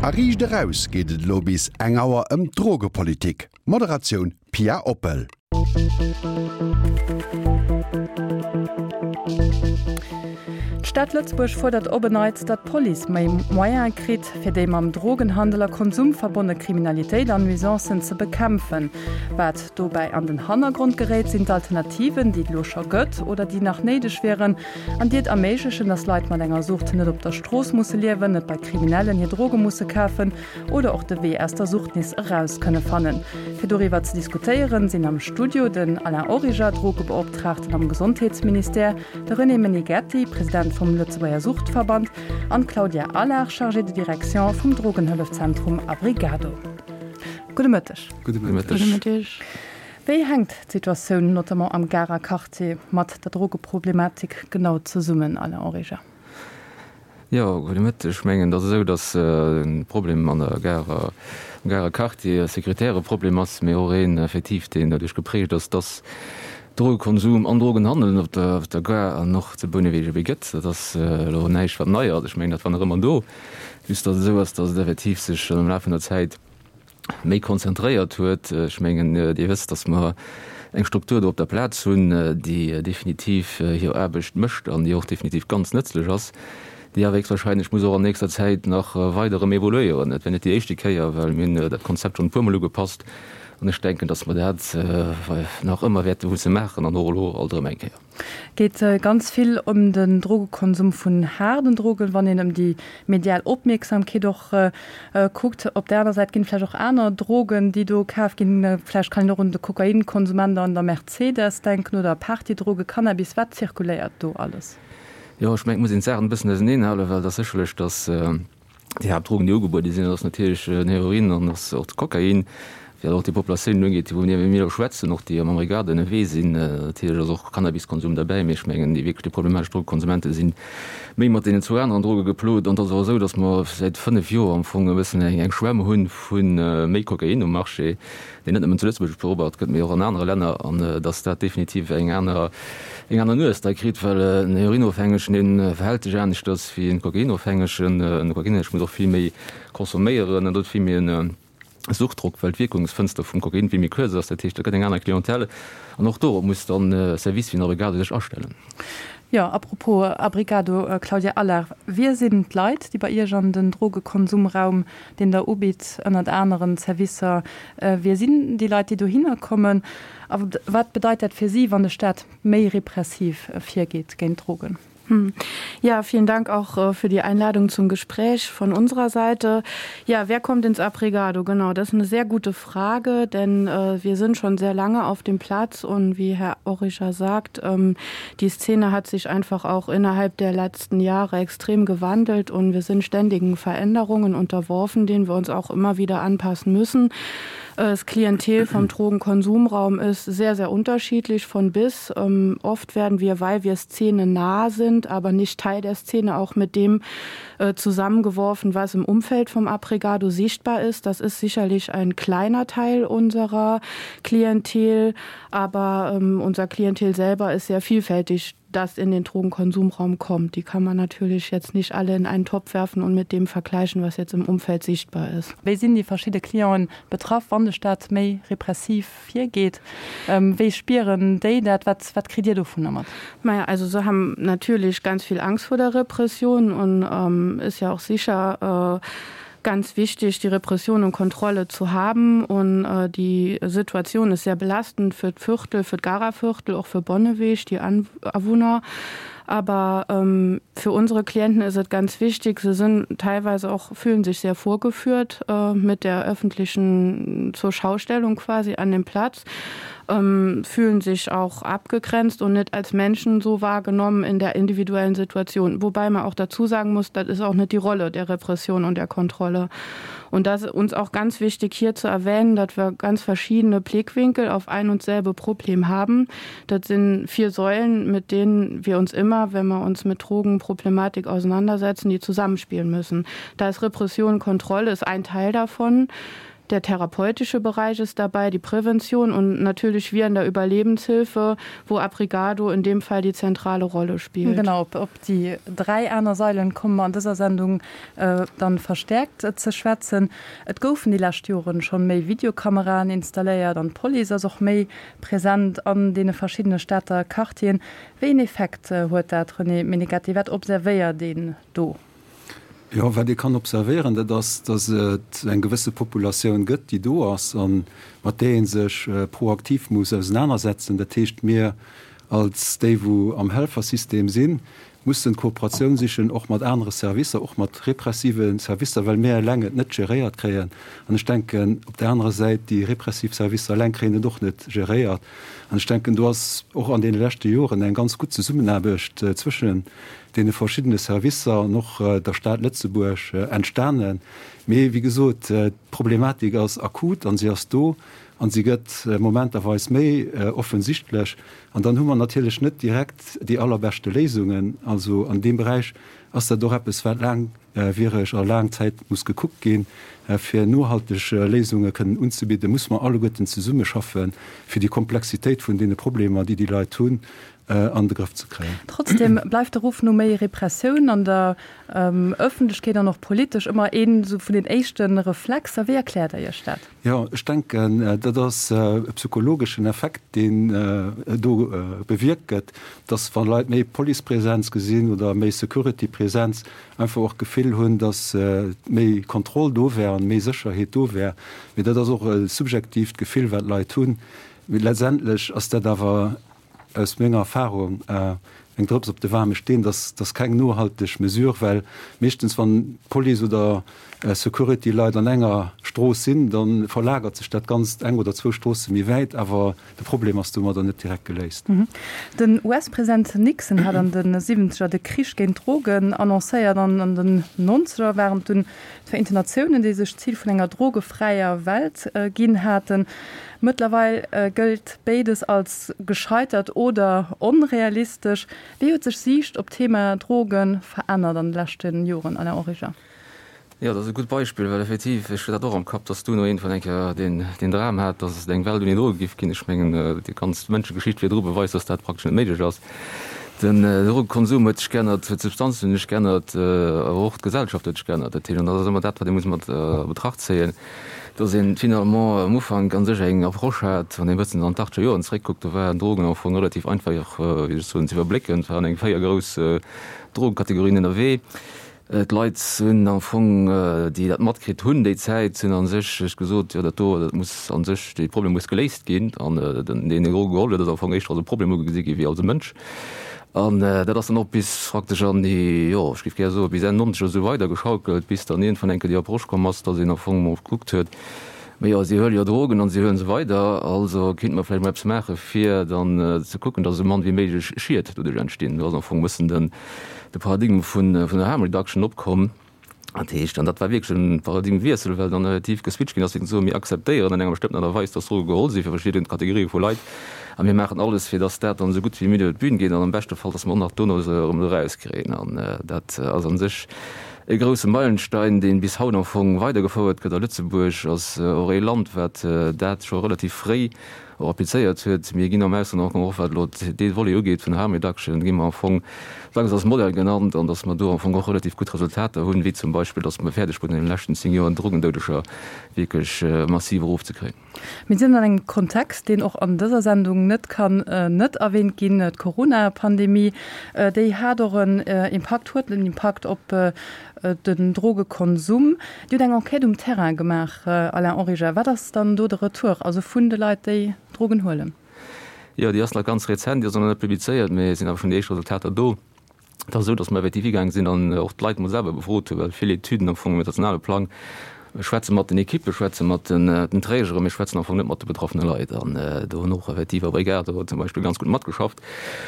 A Riicht Eraus geet et elo bis eng Auer ëm d'Drogepolitik. Moderatioun Pia Oppel. D'Stad Lëtzebuerg fuerdert op en Neits, datt d'Police méi Moyene kritt, fir déi mam Drogenhandel a Konsum verbonne Kriminalitéit an Nuisancen ze bekämpfen. Wat dobäi an den Hannergrond geréit, sinn d'Alternativen, déi et elo scho gëtt oder déi nach néideg wieren an déi et erméiglechen, datt Leit mat enger Sucht net op der Strooss musse liewen, net bei Kriminellen hir Droge musse kafen oder och de Wee aus der Sucht nees eraus kënne fannen. Fir doriwwer ze diskutéieren, sinn am Studio den Alain Origer, Drogebeoptraagten am Gesondheetsministère, de René Meneghetti, President vum Lëtzebuerger Suchtverband an d'Claudia Allard, Chargée de direction vum Drogenhëllefzentrum Abrigado. Gudde Mëtteg. Gudde Mëtteg. Wéi hänkt d'Situatioun notamment am Garer Quartier mat der Drogeproblematik genau zesummen, Alain Origer? Jo, gudde Mëtteg. Ech mengen, et ass esou, datt de Problem an der Gare, am Garer Quartier e sécuritäre Problem ass, mee och een effektiv, deen doduerch geprägt ass, datt Drogekonsum an Drogenhandel op der, op der Gare an och zu Bouneweg ebe gëtt. Dat ass elo näischt, wat nei ass. Ech mengen, dat war nach ëmmer do, just datt et esou ass, datt et effektiv sech am Laf vun der Zäit méi konzentréiert huet. Ech mengen, Dir wësst, dass mer eng Struktur do op der Plaz hunn, déi definitiv hir Aarbecht mécht an déi och definitiv ganz nëtzlech ass, déi awer héchstwahrscheinlech muss och an nächster Zäit nach weider erëm evoluéieren. Et wär net déi éischte Kéier, well mir hunn dat Konzept schonn e puermol ugepasst an ech denken, dass mer dat nach ëmmer wäerte musse maachen an och elo alt erëm eng Kéier. Geet ganz vill ëm den Drogekonsum vun haarden Drogen, wann een ëm déi medial Opmierksamkeet och kuckt. Op där aner Säit ginn et vläicht och aner Drogen, déi do kaf ginn. Vläicht kann een och un de Kokainkonsumment an der Mercedes denken oder Partydroge, Cannabis. Wat zirkuléiert do alles? Jo, ech mengen, et muss een d'Saachen e bëssen auseneenhalen, well et ass sécherlech, datt Déi Haaptdrogen, déi ugebuede sinn, dat ass natierlech den Heroin an ass och de Kokain. Wat och déi Populatioun ugeet, wou mir elo schwätzen, och déi am Abrigado ënnerwee sinn, natierlech ass och Cannabiskonsum derbäi, mee ech mengen, déi wierklech déi problematesch Drogekonsumente si méi mat deenen zwou aneren Droge geplot. An et ass och esou, datt mer säit 5 Joer am Fong e bëssen eng Schwämm hu vu méi Kokain um Marché, deen net nëmmen zu Lëtzebuerg beobacht gëtt, mee och an anere Länner, an datt dat definitiv eng aner, eng aner Nues da kritt, well en Heroinofhängegen, dee verhält sech aneschters wéi en Kokainofhängegen. En Kokainofhängege muss och vill méi consomméieren an huet vill méi en Suchtdrock, well d'Wierkungsfënster vum Kokain vill méi kuerz ass. Dat heescht, dat gëtt eng aner Clientèle an och dorop muss dann e Service wéi den Abrigado sech astellen. Jo, apropos Abrigado, Claudia Allard, Wie sinn d'Leit, déi bei Iech an den Drogekonsumraum deen Der ubitt, ënnert aneren Servicer. Wie sinn déi Leit, déi dohinner kommen a wat bedeit dat fir si, wann de Staat méi repressiv virgeet géint Drogen? Ja, vielen Dank auch für die Einladung zum Gespräch von unserer Seite. Ja, wer kommt ins Abrigado? Genau, das ist eine sehr gute Frage, denn äh, wir sind schon sehr lange auf dem Platz und wie Herr Orischer sagt, ähm, die Szene hat sich einfach auch innerhalb der letzten Jahre extrem gewandelt und wir sind ständigen Veränderungen unterworfen, denen wir uns auch immer wieder anpassen müssen. Das Klientel vom Drogenkonsumraum ist sehr, sehr unterschiedlich von bis. Ähm, oft werden wir, weil wir Szene nah sind, aber nicht Teil der Szene, auch mit dem äh, zusammengeworfen, was im Umfeld vom Abrigado sichtbar ist. Das ist sicherlich ein kleiner Teil unserer Klientel, aber ähm, unser Klientel selber ist sehr vielfältig das in den Drogenkonsumraum kommt. Die kann man natürlich jetzt nicht alle in einen Topf werfen und mit dem vergleichen, was jetzt im Umfeld sichtbar ist. Wéi sinn déi verschidde Clienten betraff, wann de Staat méi repressiv virgeet? Wéi spieren déi dat? Wat, wat kritt Dir dovunner mat? Naja, also se haben natürlich ganz viel Angst vor der Repression und ähm, ist ja auch sicher äh, ganz wichtig, die Repression und Kontrolle zu haben. Und äh, die Situation ist sehr belastend für Viertel, für Garaviertel, auch für Bonneweg, die Anwohner. Aber ähm, für unsere Klienten ist es ganz wichtig, sie sind teilweise auch fühlen sich sehr vorgeführt äh, mit der öffentlichen zur Schaustellung quasi an dem Platz ähm, fühlen sich auch abgegrenzt und nicht als Menschen so wahrgenommen in der individuellen Situation. Wobei man auch dazu sagen muss, das ist auch nicht die Rolle der Repression und der Kontrolle. Und das ist uns auch ganz wichtig hier zu erwähnen, dass wir ganz verschiedene Blickwinkel auf ein und selbe Problem haben. Das sind vier Säulen, mit denen wir uns immer, wenn wir uns mit Drogenproblematik auseinandersetzen, die zusammenspielen müssen. Da ist Repression, Kontrolle ist ein Teil davon. Der therapeutische Bereich ist dabei, die Prävention und natürlich wir in der Überlebenshilfe, wo Abrigado in dem Fall die zentrale Rolle spielt. Genau, op, op déi 3 aner Sailen komme mer an dëser Sendung dann verstärkt ze schwätzen. Et goufen déi lescht Joren schonn méi Videokameraen installéiert an d'Police ass och méi present an deene verschiddene Stater Quartieren. Wéi een Effekt huet dat, René Meneghetti? Wat observéiert een do? Jo, wat ee kann observéieren, dat ass, datt et eng gewësse Populatioun gëtt, déi do ass a mat där ee sech proaktiv muss ausenanersetzen. Dat heescht, mir als déi, wou am Helfersystem sinn, mussen d'Kooperatioun sichen, och mat anere Servicer, och mat repressive Servicer, well mir eleng et net geréiert kréien. An ech denken, op där anerer Säit, déi repressiv Servicer eleng kréien et och net geréiert. An ech denken, do ass och an deene leschte Joren eng ganz gutt Zesummenaarbecht zwëschen deene verschiddene Servicer an och der Stad Lëtzebuerg entstanen. Mee wéi gesot, d'Problematik ass akut an si ass do an si gëtt momenterweis méi offensichtlech. An dann hu mer natierlech net direkt déi allerbeschte Léisungen. Also an deem Beräich ass dat och eppes, wat laangwiereg a laang Zäit muss gekuckt ginn. Fir nohalteg Léisunge kënnen unzebidden, muss mer alleguerten zesummeschaffen, fir déi Komplexitéit vun deene Problemer, déi déi Leit hunn, an de Grëff ze kréien. Trotzdem bleift de Ruff no méi Repressioun an der Ëffentlechkeet an och politesch ëmmer een esou vun den éischte Reflexer. Wéi erkläert Der Iech dat? Jo, ech denken, dat ass e psychologeschen Effekt, deen do bewierkt gëtt, dass wa Leit méi Policepresenz gesinn oder méi Securitypresenz, einfach och d'Gefill hunn, dass méi Kontroll do wär an méi Sécherheet do wär. Mee dat ass och e subjektiivt Gefill, wat d'Leit hunn. Mee letztendlech ass dat awer aus menger Erfahrung eng Drëps op de waarme Steen, dass dass keng nohalteg Mesure, well meeschtens wann d'Police oder Security-Leit an enger Strooss sinn, da verlagert sech dat Ganzt eng oder zwou Stroosse méi wäit, awer de Problem ass domadder net direkt geléist. Den US-President Nixon hat an de Siwwenzeger de Krich géint d'Drogen annoncéiert an an den Nonzeger waren et dunn d'Vereenten Natiounen, déi sech d'Zil vun enger drogefräier Welt ginn haten. Mëttlerweil gëllt béides als gescheitert oder onrealistesch. Wéi huet sech Siicht op d'Thema Droge verännert an de leschte Joren, Alain Origer? Jo, dat ass e gutt Beispill, well effektiv, ech hunn dat och am Kapp, datt d'UNO iergendwann eng Kéier deen Dram hat, datt et eng Welt ouni Droge giff ginn. Ech mengen, déi ganz Mënschegeschicht virdru beweist, datt dat praktesch net méiglech ass. Den Drogekonsum huet sech geännert, d'Substanzen hunn sech geännert, awer och d'Gesellschaft huet sech geännert. Dat heescht, an dat ass ëmmer dat, wat ee muss mat a Betracht zéien, dass een finalement am Ufank a sech eng Approche hat, wann een e bëssen an d'achtzeger Joren zeréckkuckt, do waren Drogen am Fong relativ einfach, wéi soll ech soen, ze iwwerblécken. Et waren eng 4 grouss Drogekategorien ënnerwee. D'Leit hunn am Fong, déi dat matkritt hunn déi Zäit, hunn a sech gesot, jo dat do, dat muss a sech, dee Problem muss geléist ginn. An deen, deen Droge geholl huet, ass am Fong éischter als e Problem ugesi gi wéi als e Mënsch. An dat ass dann och bis praktesch an déi, jo, ech géif gär soe bis Enn Nonzeger esou weidergeschaukelt, bis dann iergendwann eng Kéier déi Approche komm ass, dass een am Fong emol gekuckt huet, ma jo, si huele jo Drogen an si huele se weider, also kéinte mer vläicht mol eppes maache fir dann ze kucken, dass esou mann wéi méiglech Schied doduerch entstinn. Do ass am Fong e bëssen den, de Paradigme vun der Harm Reduction opkomm. Dat heescht, an dat war wierklech e Paradigmewiessel, well dann relativ geswitcht ginn ass, fir ze soen, mir akzeptéieren an enger bestëmmten Aart a Weis, dass Droge geholl si fir verschidden Kategorië vu Leit a mir maachen alles, fir dass dat dann esou gutt wéi méiglech iwwer d'Bün geet an am beschte Fall, dass mer och nach dono se erëm erauskréien. An dat ass a sech e grousse Meilenstein, dee bis haut am Fong weidergefouert gëtt. A Lëtzebuerg ass och ee Land, wat dat scho relativ fréi och applizéiert huet. Mir ginn am Ausland och, och wat elo dee Volet ugeet vun der Harm Reduction, gi mer am Fong dacks als Modell genannt an datt mer do am Fong och relativ gutt Resultater hunn, wéi zum Beispill, datt mer fäerdeg wurden an deene leschten 10 Joer d'Drogendoudeger wierklech massiv erofzekréien. Mir sinn an engem Kontext, deen och an dëser Sendung net kann net erwähnt ginn, d'Corona-Pandemie. Déi hat och en Impakt, huet en Impakt op den Drogekonsum. Dir hutt eng Enquête um Terrain gemaach, Alain Origer. Wat ass dann do de Retour, also vun de Leit, déi Drogen huelen? Jo, déi ass nach ganz rezent, déi ass och nach net publizéiert, mee et sinn awer schonn déi éischt Resultater do. Et ass esou, datt mer effektiv higaange sinn an och d'Leit mol selwer befrot hunn, well vill Etüden am Fong um internationale Plang schwätze mat den Ekippe, schwätze mat den Trägeren, mee schwätzen am Fong net mat de betraffene Leit. An do hunn och effektiv Abrigado zum Beispill ganz gutt matgeschafft.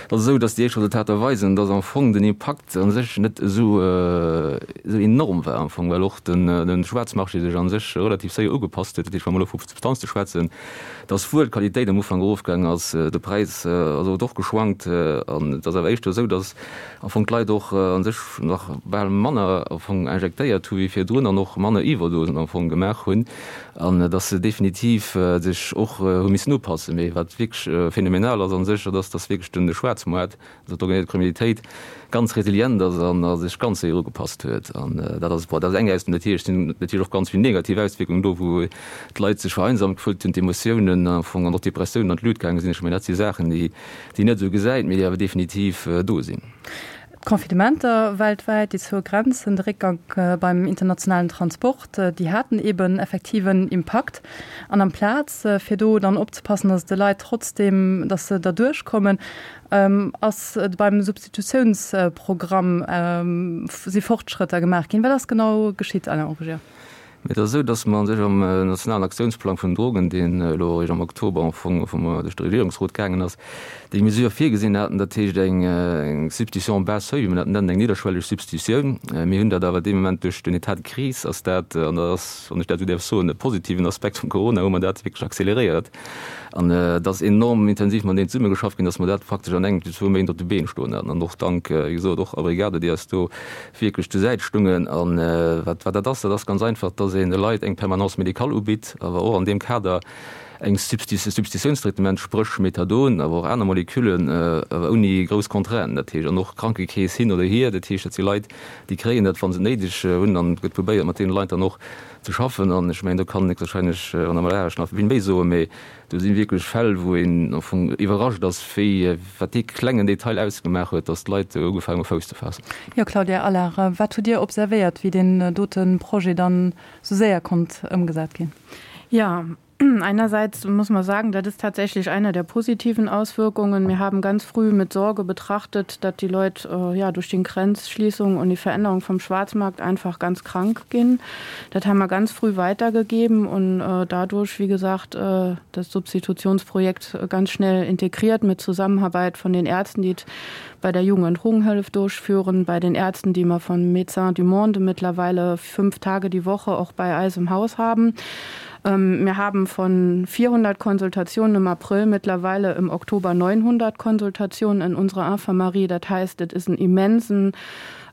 Et ass esou, datt déi éischt Resultater weisen, datt am Fong den Impakt a sech net esou enorm war am Fong, well och de Schwaarzmarché sech a sech relativ séier ugepasst huet. Dat heescht, wa mer elo vu Substanze schwätzen, datt wuel d'Qualitéit am Ufank erofgaangen ass, de Präis ass awer och geschwankt an et ass awer éischter esou, datt am Fong d'Leit och a sech nach bal manner am Fong injektéiert hu wéi virdrun an och manner Iwwerdosen. Joerdausend am Fong gemaach hunn an dass se definitiv sech och hu missen upassen. Mee wat wierklech phänomenal ass a sech, dat ass, dass wierklech den Schwaarzmoart, also d'organiséiert Kriminalitéit, ganz resilient ass an a sech ganz séier ugepasst huet. An dat ass, bon, dat ass eng Auswierkung. Natierlech sinn natierlech och ganz vill negativ Auswierkungen do, wou d'Leit sech vereinsamt gefullt hunn, d'Emotiounen am Fong an och d'Depressiounen an d'Lut gaange sinn. Ech mengen, dat si Saachen, déi déi een net esou gesäit, mee déi awer definitiv do sinn. D'Confinementer weltwäit, déi zoue Grenzen, de Réckgank beim internationalen Transport, déi haten eeben effektiv en Impakt. An amplaz fir do dann opzepassen, datt et de Leit trotzdeem, datt se derduerch kommen, ass beim Substitutiounsprogramm si Fortschrëtter gemaach ginn. Wat ass genau geschitt, Alain Origer? Mee et ass esou, datt mer a sech am nationalen Aktiounsplang vun den Drogen, deen elo eréischt am Oktober am Fong vum duerch de Regierungsrot gaangen ass, déi Mesure virgesinn haten, dat heescht eng Substitution bas seuil, wéi mer dat nennen, eng nidderschwelleg Substitutioun. Mir hunn dat awer dee Moment duerch den État de crise ass dat, an dat ass, wann ech dat esou däerf soen, e positiven Aspekt vum Corona, hu mer dat wierklech accéléréiert. An et ass enorm intensiv mat deenen zesummegeschafft ginn, datt mer dat praktesch an engem, zwou Méint op de Been stoen haten. An och dank, wéi gesot, och Abrigado, déi eis do wierklech zur Säit stungen. A wat dat ass, dat ass ganz einfach, dass een de Leit eng Permanence médicale ubitt, awer och an deem Kader eng Substitutiounstraitement, spréch Methadon, awer och aner Moleküllen, awer ouni grouss Contrainten. Dat heescht, an och Krankekeess hin oder hier, dat heescht, dat si Leit, déi kréien dat, wa se et néideg hunn, an et gëtt probéiert, mat deene Leit dann och ze schaffen. An ech mengen, do kann héchstwahrscheinlech d'Madame Laasch nach vill méi soen, mee Do si wierklech Fäll, wou een am Fong iwwerrascht ass, wéi, wat dee klengen Detail ausgemaach huet, datt d'Leit ugefaangen hu Fouss ze faassen. Jo, Claudia Allard, wat hutt Dir observéiert, wéi deen dote Projet dann esou séier konnt ëmgesat ginn? Jo, einerseits muss man sagen, dat ist tatsächlich eine der positiven Auswirkungen. Wir haben ganz früh mit Sorge betrachtet, dat die Leut ja durch den Grenzschließung und die Veränderung vom Schwarzmarkt einfach ganz krank ginn. Dat haben wir ganz früh weitergegeben und dadurch, wie gesagt, das Substitutionsprojekt ganz schnell integriert mit Zusammenarbeit von den Ärzten, die bei der Jugend- und Drogenhilfe durchführen, bei den Ärzten, die wir von Médecins du Monde mittlerweile fünf Tage die Woche auch bei Eis im Haus haben. Wir haben von 400 Konsultationen im April mittlerweile im Oktober 900 Konsultationen in unserer Infirmerie. Das heißt, es ist ein immensen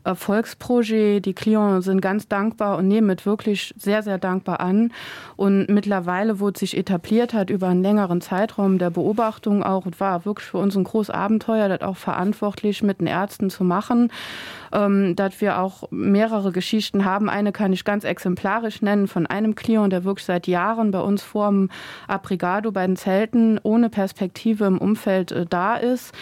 Erfolgsprojet. Die Clients sind ganz dankbar und nehmen et wirklich sehr, sehr dankbar an. Und mittlerweile, wo et sich etabliert hat über einen längeren Zeitraum der Beobachtung auch, et war wirklich für uns ein groß Abenteuer, dat auch verantwortlich mit den Ärzten zu machen, dat wir auch mehrere Geschichten haben. Eine kann ich ganz exemplarisch nennen von einem Client, der wirklich seit Jahren bei uns vorm Abrigado bei den Zelten ohne Perspektive im Umfeld da ist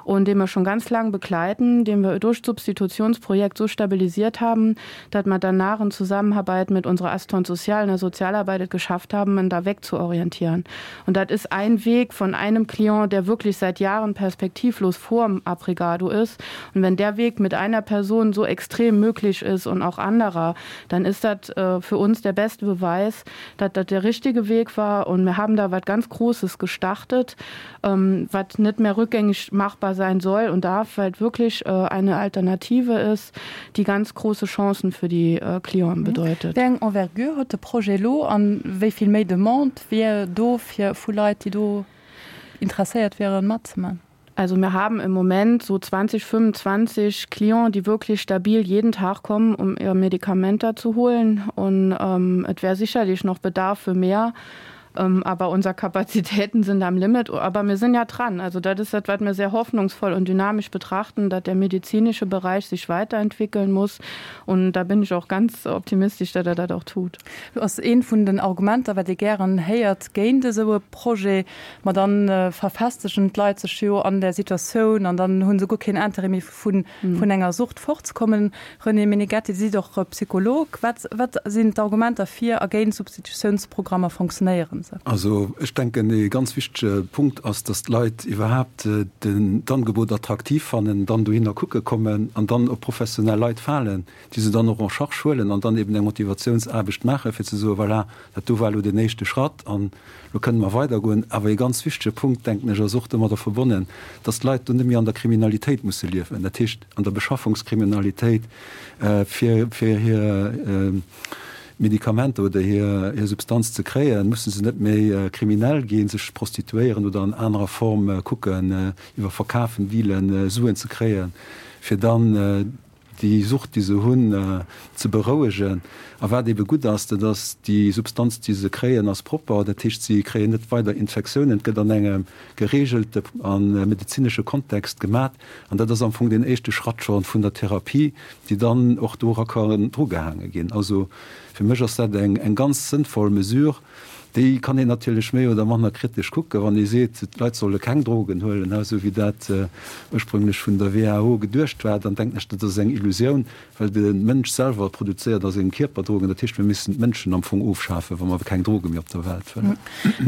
und den wir schon ganz lang begleiten, den wir durch Substitutionsprojekt so stabilisiert haben, dass wir danach in Zusammenarbeit mit unserer Assistante sociale und der Sozialarbeit geschafft haben, ihn da wegzuorientieren. Und das ist ein Weg von einem Klient, der wirklich seit Jahren perspektivlos vorm Abrigado ist. Und wenn der Weg mit einer Person so extrem möglich ist und auch anderer, dann ist das äh, für uns der beste Beweis, dass das der richtige Weg war. Und wir haben da was ganz Großes gestartet, ähm, was nicht mehr rückgängig machbar sein soll und darf, weil wirklich äh, eine Alternative ist, die ganz große Chancen für die äh, Klienten mhm. bedeutet. Wéi eng Envergure huet de Projet elo an wéi vill méi Demande wier do fir vu Leit, déi do interesséiert wieren matzemaachen? Also wir haben im Moment so 20, 25 Clients, die wirklich stabil jeden Tag kommen, um ihr Medikament da zu holen. Und ähm, et wär sicherlich noch Bedarf für mehr. Ähm, aber unser Kapazitäten sind am Limit. Aber wir sind ja dran. Also das ist das, was wir sehr hoffnungsvoll und dynamisch betrachten, dass der medizinische Bereich sich weiterentwickeln muss. Und da bin ich auch ganz optimistisch, dass er das auch tut. Lo ass eent vun den Argumenter, wat ee gären héiert géint esou e Projet, ma dann verfestegen d'Leit sech jo an där Situatioun an dann hu se guer keen Intérêt méi vun enger Sucht fortzekommen. René Meneghetti, Dir sidd och Psycholog. Wat wat sinn d'Argumenter fir a géint Substitutiounsprogrammer? Fonctionnéieren se? Also ech denken, ee ganz wichtege Punkt ass, dass d'Leit iwwerhaapt d'Angebot attraktiv fannen, dann dohinner kucke kommen an dann op professionell Leit falen, déi se dann och en charge huelen an dann eben eng Motivatiounsaarbecht maachen, fir ze soen, voilà, dat do war elo deen éischte Schratt an elo kënne mer weidergoen. Awer ee ganz wichtege Punkt, denken ech, ass och domadder verbonnen, dass d'Leit do net méi an der Kriminalitéit musse liewen, dat heescht an der Beschaffungskriminalitéit, fir fir hir Medikamenter oder hir hir Substanz ze kréien, musse se net méi kriminell ginn, sech prostituéieren oder an anerer Form kucken, iwwer Verkafen, Dealen, Suen ze kréien, fir dann. déi Sucht, déi se hunn, ze berouegen. A wat ebe gutt ass, dat ass, déi Substanz, déi se kréien, ass propper. Dat heescht, si kréien net weider Infektiounen. Et gëtt an engem gereegelte a medezinesche Kontext gemat. An dat ass am Fong deen éischte Schratt scho vun der Therapie, déi dann och dora kann drugehaange ginn. Also fir mech ass dat eng ganz sënnvoll Mesure. Déi kann een natierlech méi oder manner kritesch kucken, wann ee seet, d'Leit solle keng Drogen huelen, esou wéi dat ursprünglech vun der WHO geduecht war, dann denken ech, dat ass eng Illusioun, well de Mënsch selwer produzéiert a sengem Kierper Drogen. Dat heescht, mir missten d'Mënschen am Fong ofschafen, wa mer keng Droge méi op der Welt wëllen.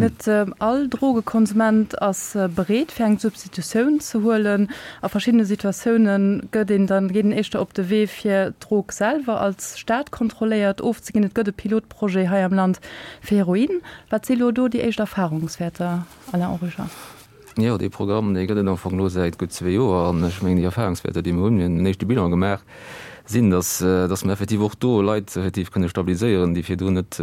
Net all Drogekonsument ass bereet, fir eng Substitutioun ze huelen. A verschiddene Situatioune gëtt een dann, geet een éischter op de Wee, fir d'Drog selwer als staatkontrolléiert ofzeginn. Et gëtt e Pilotprojet Projet hei am Land fir Heroin. Wat si lo do déi éischt Erfahrungswäerter, Alain Origer? Jo, dee Programm, dee gëtt et am Fong elo säit gutt zwee Joer. An ech mengen, déi Erfahrungswäerter, déi mer hunn, mir hunn en éischte Bilan gemaach, sinn, dass, dass mer effektiv och do Leit effektiv kënne stabiliséieren, déi virdrun net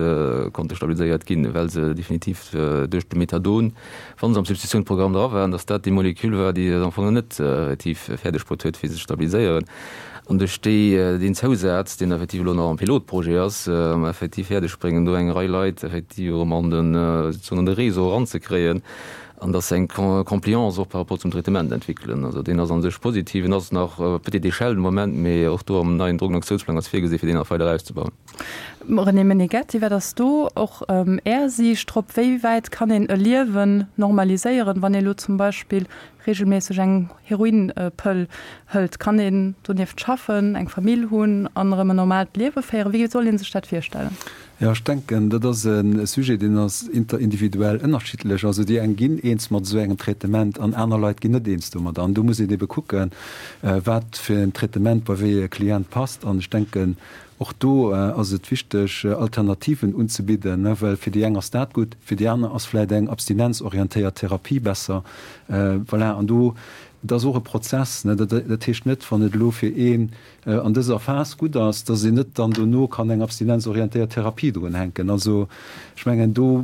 konnte stabiliséiert ginn, well se definitiv duerch de Methadon, wa se am Substitutiounsprogramm dra waren, dass dat déi Molekül war, déi et am Fong net effektiv fäerdeg bruet huet, fir se ze stabiliséieren. An duerch déi, deen Zousaz, deen effektiv elo nach am Pilotprojet ass, mer effektiv fäerdeg bréngen, do eng Rei Leit effektiv erëm an den, sozusagen an de Réseau eranzekréien an dass se eng Compliance och par rapport zum Traitement entwéckelen. Also deen ass a sech positiv. En ass nach à petite échelle de Moment, mee och do am neien Drogenaktiounsplang ass virgesi fir deen nach weider auszebauen. René Meneghetti, wat ass do och Är Siicht drop? Wéi wäit kann een e Liewen normaliséieren, wann ee elo zum Beispill regelméisseg eng Heroinpëll hëlt, kann een donieft schaffen, eng Famill hunn an erëm en normaalt Liewe féieren? Wéi soll ee sech dat virstellen? Jo, ech denken, dat ass e Sujet, deen ass interindividuell ënnerschiddlech. Also déi eng ginn eens mat esou engem Traitement an aner Leit ginn net eens domadder. An do muss een ebe kucken, wat fir en Traitement bei wéi e Klient passt. An ech denken, Och do ass et wichteg, Alternativen unzebidden, well fir déi eng ass dat gutt, fir déi aner ass vläicht eng abstinenzorientéiert Therapie besser. Voilà, an do, dat ass och e Prozess. Dat heescht net, wann et elo fir een an dëser Phas gutt ass, dass een net dann dono kann eng abstinenzorientéiert Therapie drunhänken. Also ech mengen, do,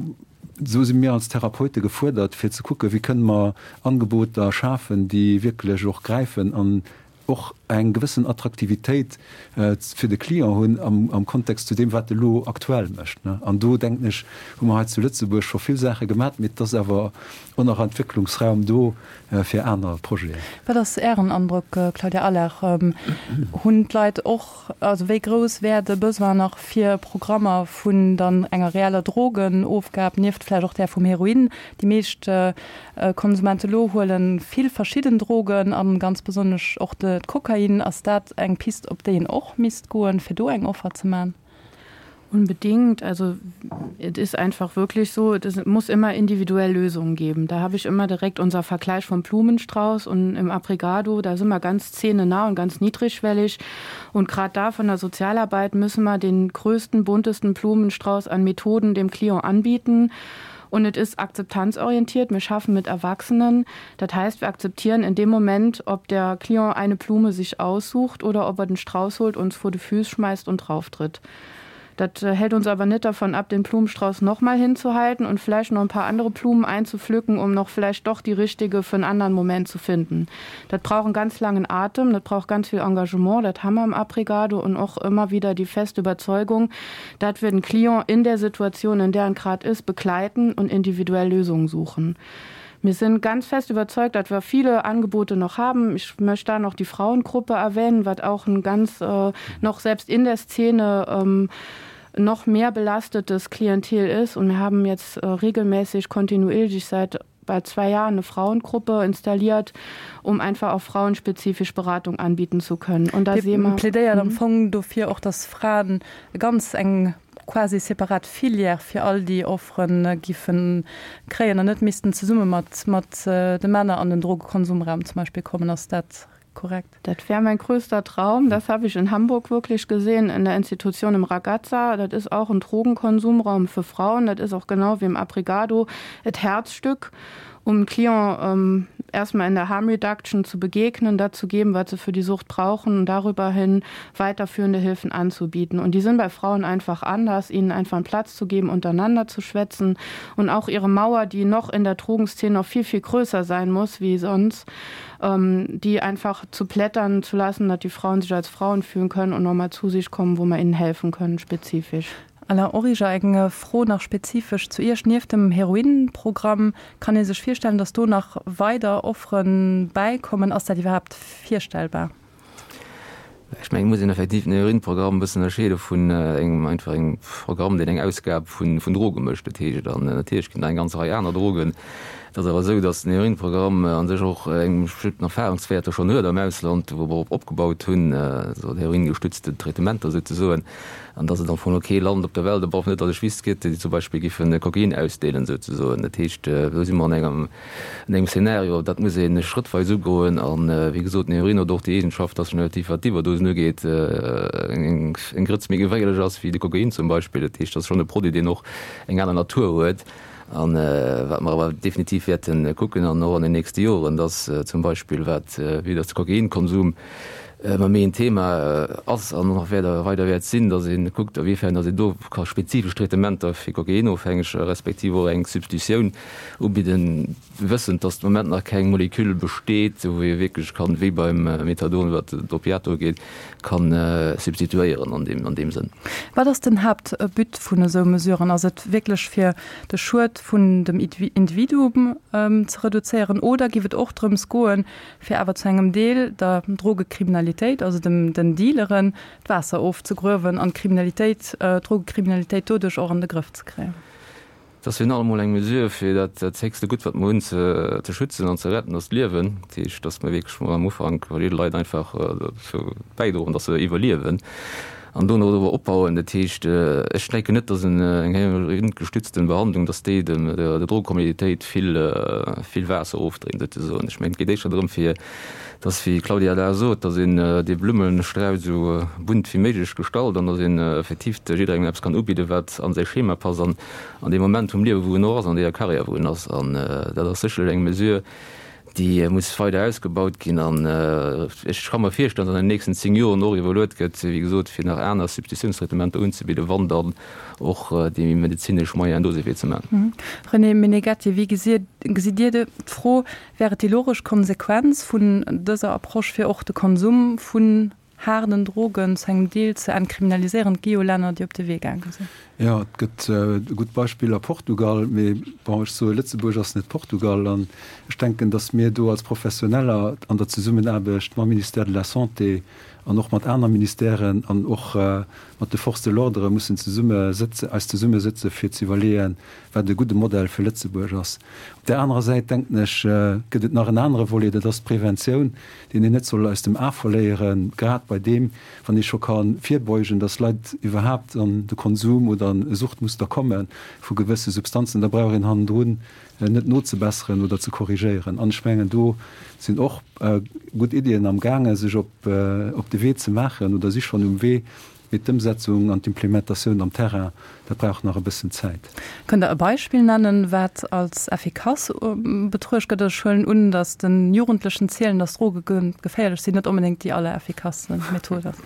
do si mir als Therapeute gefuerdert, fir ze kucken, wéi kënne mer Angeboter schafen, déi wierklech och gräifen an och eng gewëssen Attraktivitéit fir de Client hunn am Kontext zu deem, wat e lo aktuell mécht. An do, denken ech, hu mer hei zu Lëtzebuerg scho vill Saache gemat, mee et ass awer och nach Entwécklungsraum do fir aner Projeten. Wat ass Ären Androck, Claudia Allard? Hunn d'Leit och, also wéi grouss wär de Besoin nach fir Programmer vun dann enger reeller Drogenofgab, nieft vläicht och där vum Heroin? Déi meescht Konsumente lo huelen vill verschidden Drogen an ganz besonnesch och de Kokain. Ass dat eng Pist op déi een och misst goen, fir do eng Offer ze man? Unbedingt. Also et ist einfach wirklich so, es muss immer individuell Lösungen geben. Da habe ich immer direkt unser Vergleich vom Blumenstrauß und im Abrigado, da sind wir ganz szenenah und ganz niedrigschwellig. Und gerade da von der Sozialarbeit müssen wir den größten, buntesten Blumenstrauß an Methoden dem Klient anbieten. Und es ist akzeptanzorientiert. Wir schaffen mit Erwachsenen. Das heißt, wir akzeptieren in dem Moment, ob der Klient eine Blume sich aussucht oder ob er den Strauß holt, uns vor die Füße schmeißt und drauftritt. Das äh, hält uns aber nicht davon ab, den Blumenstrauß noch mal hinzuhalten und vielleicht noch ein paar andere Blumen einzupflücken, um noch vielleicht doch die richtige für einen anderen Moment zu finden. Das braucht einen ganz langen Atem, das braucht ganz viel Engagement, das haben wir im Abrigado und auch immer wieder die feste Überzeugung, dass wir den Klient in der Situation, in der er gerade ist, begleiten und individuell Lösungen suchen. Wir sind ganz fest überzeugt, dass wir viele Angebote noch haben. Ich möchte da noch die Frauengruppe erwähnen, was auch ein ganz äh, noch selbst in der Szene ähm, noch mehr belastetes Klientel ist. Und wir haben jetzt äh, regelmäßig kontinuierlich seit bei zwei Jahren eine Frauengruppe installiert, um einfach auch frauenspezifisch Beratung anbieten zu können. Und da sehen wir plädéiert am mhm. Fong dofir och, dass Fraen ganz eng quasi separat Filière fir all déi Offere giffen kréien an net missten zesumme mat mat de Männer an den Drogekonsumraum zum Beispill kommen. Ass dat korrekt? Dat wär mein größter Traum. Das habe ich in Hamburg wirklich gesehen, in der Institution im Ragazza. Dat ist auch ein Drogenkonsumraum für Frauen. Dat ist auch genau wie im Abrigado et Herzstück, um Client ähm, erstmal in der Harm Reduction zu begegnen, dazu geben, was sie für die Sucht brauchen und darüber hin weiterführende Hilfen anzubieten. Und die sind bei Frauen einfach anders, ihnen einfach einen Platz zu geben, untereinander zu schwätzen und auch ihre Mauer, die noch in der Drogenszene noch viel, viel größer sein muss wie sonst, ähm, die einfach zu plättern zu lassen, dass die Frauen sich als Frauen fühlen können und nochmal zu sich kommen, wo man ihnen helfen können spezifisch. Alain Origer, Eng Fro nach spezifesch zu Iech, Nieft dem Heroinprogramm, kann ee sech virstellen, datt do nach weider Offere bäikommen? Ass dat iwwerhaapt virstellbar? Ech mengen, et muss een effektiv den Heroinprogramm e bëssen ënnerscheede vun engem einfach engem Programm, deen eng Ausgab vun Droge mécht. Dat heescht, an natierlech ginn et nach eng ganz Rei aner Drogen. Et ass awer esou, datt den Heroinprogramm a sech och eng bestëmmten Erfahrungswäerter schonn huet am Ausland, wou mer op opgebaut hunn, also heroingestützte Traitementer souzesoen. An dass et am Fong elo kee Land op der Welt, op alle Fall net, datt ech wüsst, gëtt, déi zum Beispill giffe Kokain ausdeelen, souzesoen. Dat heescht, do si mer an engem, an engem Szenario, dat muss ee schrëttweis ugoen. A wéi gesot, den Heroin huet och déi Eegenschaft, dass en relativ, wat d'Iwwerdosen ugeet, eng Grëtz méi geféierlech ass wéi de Kokain zum Beispill. Dat heescht, dat ass schonn e Produit, deen och eng aner Natur huet. A wat mer awer definitiv wäerte kucken an och an den nächste Joren, dass zum Beispill wat, vue dass de Kokainkonsum ëmmer méi en Thema ass an och nach weider wäert sinn, dass ee kuckt, a wéifern dass een do ka spezifesch Traitementer fir Kokainofhängeger respektiv och eng Substitutioun ubidden, wëssend, dass de Moment nach keng Moleküll besteet, wou ee wierklech kann, wéi beim Methadon, wat d'Opiater ugeet, ka substituéieren an deem, an deem Sënn. Wat ass den Haaptbut vun esou Mesuren? Ass et wierklech fir de Schued vun dem Individuum ze reduzéieren oder giff et och drëms goen, fir awer zu engem Deel der Drogekriminalitéit, also dem, den Dealeren, d'Waasser ofzegruewen an d'Kriminalitéit, d'Drogekriminalitéit doduerch och an de Grëff ze kréien? Et ass virun allem emol eng Mesure, fir dat, dat héchste Gutt, wat mer hunn, ze, ze schützen an ze retten, dat ass d'Liewen. Dat heescht, dass mer wierklech mol am Ufank verschidde Leit einfach dozou bäidroen, dass se iwwerliewen an dono awer opbauen. Dat heescht, ech denken net, dass en, eng heroingestützten Behandlung, dass déi dem, der, der Drogekriminalitéit vill, vill Waasser ofdréint, souzesoen. Ech mengen, et geet éischter drëm, fir dass, wéi d'Claudia Lahr sot, dass een dee Blummestrauss esou bunt wéi méiglech gestalt an dass een effektiv jidderengem eppes kann ubidden, wat an säi Schema passt an an deem Moment vum Liewe wou en och ass, an deeër Karriär wou en ass. An dat ass sécherlech eng Mesure, déi muss weider ausgebaut ginn. An ech ka mer virstellen, dass an den nächsten 10 Joren och iwwerluet gëtt, wéi gesot, fir nach aner Substitutiounstraitementer unzebidden, wann dann och déi medezinesch Moyenen do sinn, fir et ze maachen. René Meneghetti, wéi gesitt Dir d'Fro? Wär et déi logesch Konsequenz vun dëser Approche, fir och de Konsum vun haarden Drogen zu engem Deel ze entkriminaliséieren? Et gi jo Länner, déi op de Wee gaange sinn. Jo, et gëtt gutt Beispiller, Portugal, mee bon, ech soe Lëtzebuerg ass net Portugal. An ech denken, datt mir do als Professioneller an der Zesummenaarbecht mam Ministère de la Santé an och mat aner Ministèren an och mat de Forces de l'ordre mussen zesumme sëtze, eis zesummesëtze fir ze iwwerleeën, wat e gudde Modell fir Lëtzebuerg ass. Op där anerer Säit, denken ech, gëtt et nach en anere Volet, dat ass d'Preventioun, deen een net soll aus dem A verléieren, grad bei deem, wann ee scho ka virbeugen, dass Leit iwwerhaapt an de Konsum oder an e Suchtmuster komme vu gewësse Substanzen, da brauch een hannendrun net nozebesseren oder ze korrigéieren. An ech mengen, do sinn och gutt Iddien amgaange sech op de Wee ze maachen oder si schonn um Wee, Mee d'Ëmsetzung an d'Implementatioun am Terrain, dat brauch nach e bëssen Zäit. Kënnt Der e Beispill nennen, wat als effikass betruecht gëtt? Ech huelen un, datt de Jugendlechen zielen, datt Droge geféierlech sinn, net onbedéngt déi allereffikasste Method ass.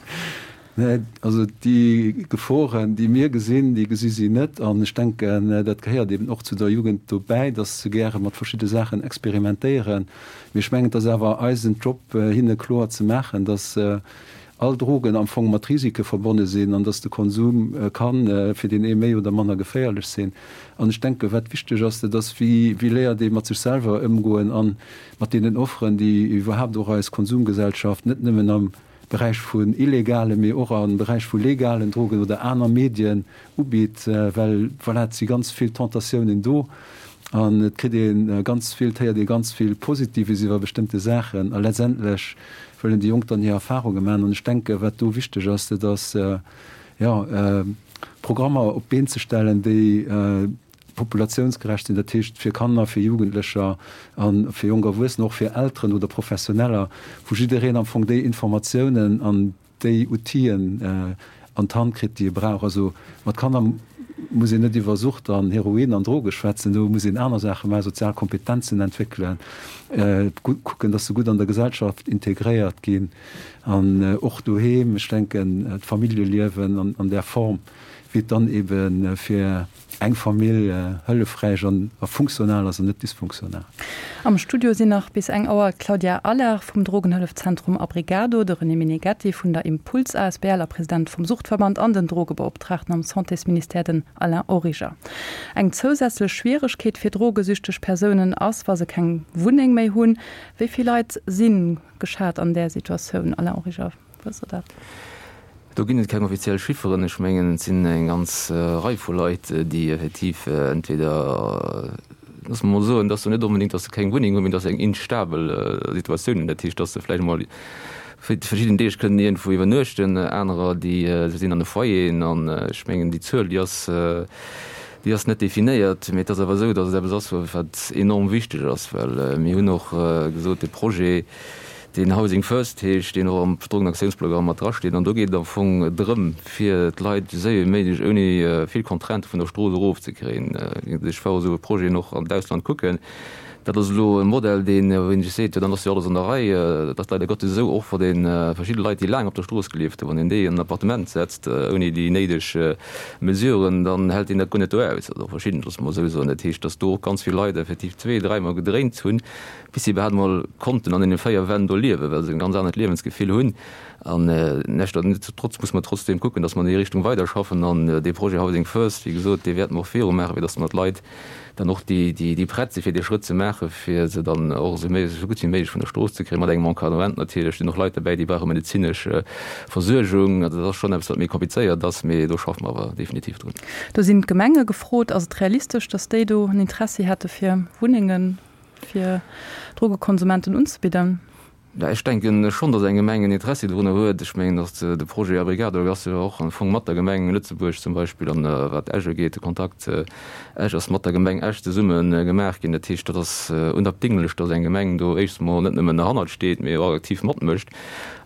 Nee, also déi Geforen, déi mir gesinn, déi gesi si net. An ech denken, dat gehéiert eben och zu der Jugend dobäi, datt se gäre mat verschidde Saachen experimentéieren. Mee ech mengen, et ass awer eisen Job, hinne kloer ze maachen, datt all Drogen am Fong mat Risike verbonne sinn an dass de Konsum ka fir deen ee méi oder manner geféierlech sinn. An ech denken, wat wichteg ass, dat ass, wéi wéi léiert ee mat sech selwer ëmgoen a mat deenen Offeren, déi iwwerhaapt och eis Konsumgesellschaft net nëmmen am Beräich vun illegalen, mee och am Beräich vu legalen Drogen oder aner Medien ubitt, well voilà, et si ganz vill Tentatiounen do an et kritt ee ganz vill, et héiert ee ganz vill Positives iwwer bestëmmte Saachen a letztendlech wëllen déi Jonk dann hir Erfahrunge maachen. An ech denke wat do wichteg ass, dat ass jo Programmer op d'Been ze stellen, déi populatiounsgerecht sinn, dat heescht fir Kanner, fir Jugendlecher a fir jonk Erwuessener, och fir Elteren oder Professioneller, wou jiddereen am Fong déi Informatiounen an déi Outill'en an d'Hand kritt, déi e brauch. Also mat Kanner. muss een net iwwer Sucht an Heroin an Droge schwätzen, do muss een aner Saache maachen, sozial Kompetenzen entwéckelen, kucken, dass se gutt an der Gesellschaft integréiert ginn an och doheem, ech denken d'Familljeliewen an där Form, wéi et dann ebe fir eng Famill hëllefräich an a funktional ass an net dysfunktional. Am Studio sinn nach bis eng Auer d'Claudia Allard vum Drogenhëllefzentrum Abrigado, de René Meneghetti vun der Impuls asbl a President vum Suchtverband an den Drogebeoptraagten am Santésministère, den Alain Origer. Eng zousätzlech Schwieregkeet fir drogesüchteg Persounen ass, wa se keng Wunneng méi hunn. Wéi vill Leit si geschat an där Situatioun, Alain Origer? Wësst Der dat? Do ginn et keng offiziell Chifferen. Ech mengen, et sinn eng ganz Rei vu Leit, déi effektiv entweder, loosse mer mol soen, dass se net onbedéngt, dass se keng Wunneng hunn, mee dass se eng instabel Situatioun hunn. Dat heescht, dass se vläicht emol fir verschidden Deeg kënnen iergendwou iwwernuechten, anerer, déi sinn an de Foyeren. An ech mengen, déi Zuel, déi ass, déi ass net definéiert. Mee et ass awer esou, dass et eppes ass, wat enorm wichteg ass, well mir hunn och gesot, de Projet, deen Housing First heescht, deen och am Drogenaktiounsprogramm mat drasteet. An do geet et am Fong drëm, fir d'Leit esou séier wéi méiglech ouni vill Contraintë vun der Strooss erofzekréien. Ech war esou e Projeten och an d'Ausland kucken. Dat ass elo e Modell, deen, wou een sech seet, jo dann ass jo alles an der Rei. Dat ass leider Gottes esou, och wa ee verschidde Leit, déi laang op der Strooss gelieft hunn, wann een déi an en Appartement setzt ouni déi néideg Mesuren, dann hält deen dat guer net do aus. Also verschidden, loosse mer esou soen. Dat heescht, datt do och ganz vill Leit effektiv zwee-, dräimol gedréint hunn, bis si iwwerhaapt emol konnten an deene 4 Wänn do liewen, well se en ganz anert Liewensgefill hunn. An nichtsdestotrotz muss mer trotzdeem kucken, dass mer an déi Richtung weiderschaffen. An dee Projet Housing First, wéi gesot, dee wäerte mer och virumaachen, fir dass mer d'Leit dann och, déi, déi prett sinn, fir dee Schrëtt ze maachen, fir se dann och esou méi, esou gutt wéi méiglech vun der Strooss ze kréien, mat engem Encadrement natierlech. Et sinn och Leit derbäi, déi brauche medezinesch Versuergung. Also dat ass schonn eppes, wat méi komplizéiert ass, mee do schaffe mer awer definitiv drun. Do sinn d'Gemenge gefrot. Ass et realistesch, dass déi do en Interessi hätte fir Wunnengen fir Drogekonsumenten unzebidden? Jo, ech denken schonn, datt eng Gemeng en Interessi dorunner huet. Ech mengen, datt de Projet Abrigado ass jo och am Fong mat der Gemeng Lëtzebuerg zum Beispill an wat Esch ugeet, de Kontakt Esch ass mat der Gemeng Esch zesumme gemaach ginn. Dat heescht, dat ass unabdinglech, datt eng Gemeng do éischts emol net nëmmen derhannert steet, mee och aktiv matmécht.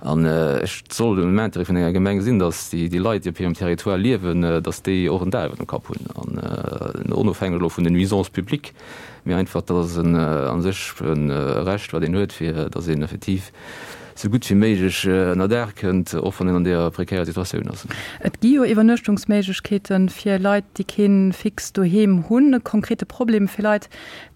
An et soll am Intérêt vun enger Gemeng sinn, datt déi Leit, déi op hirem Territoire liewen, datt déi och en Daach iwwer dem Kapp hunn an onofhängeg elo vun den Nuisances publiques. Mee einfach, dat ass en a sech e Recht, wat een huet, fir datt een effektiv esou gutt wéi méiglech ënnerdaach kënnt, och wann een an deeër prekärer Situatioun ass. Et gi jo Iwwernuechtungsméiglechkeete fir Leit, déi kee fixt Doheem hunn. E konkrete Problem fir Leit,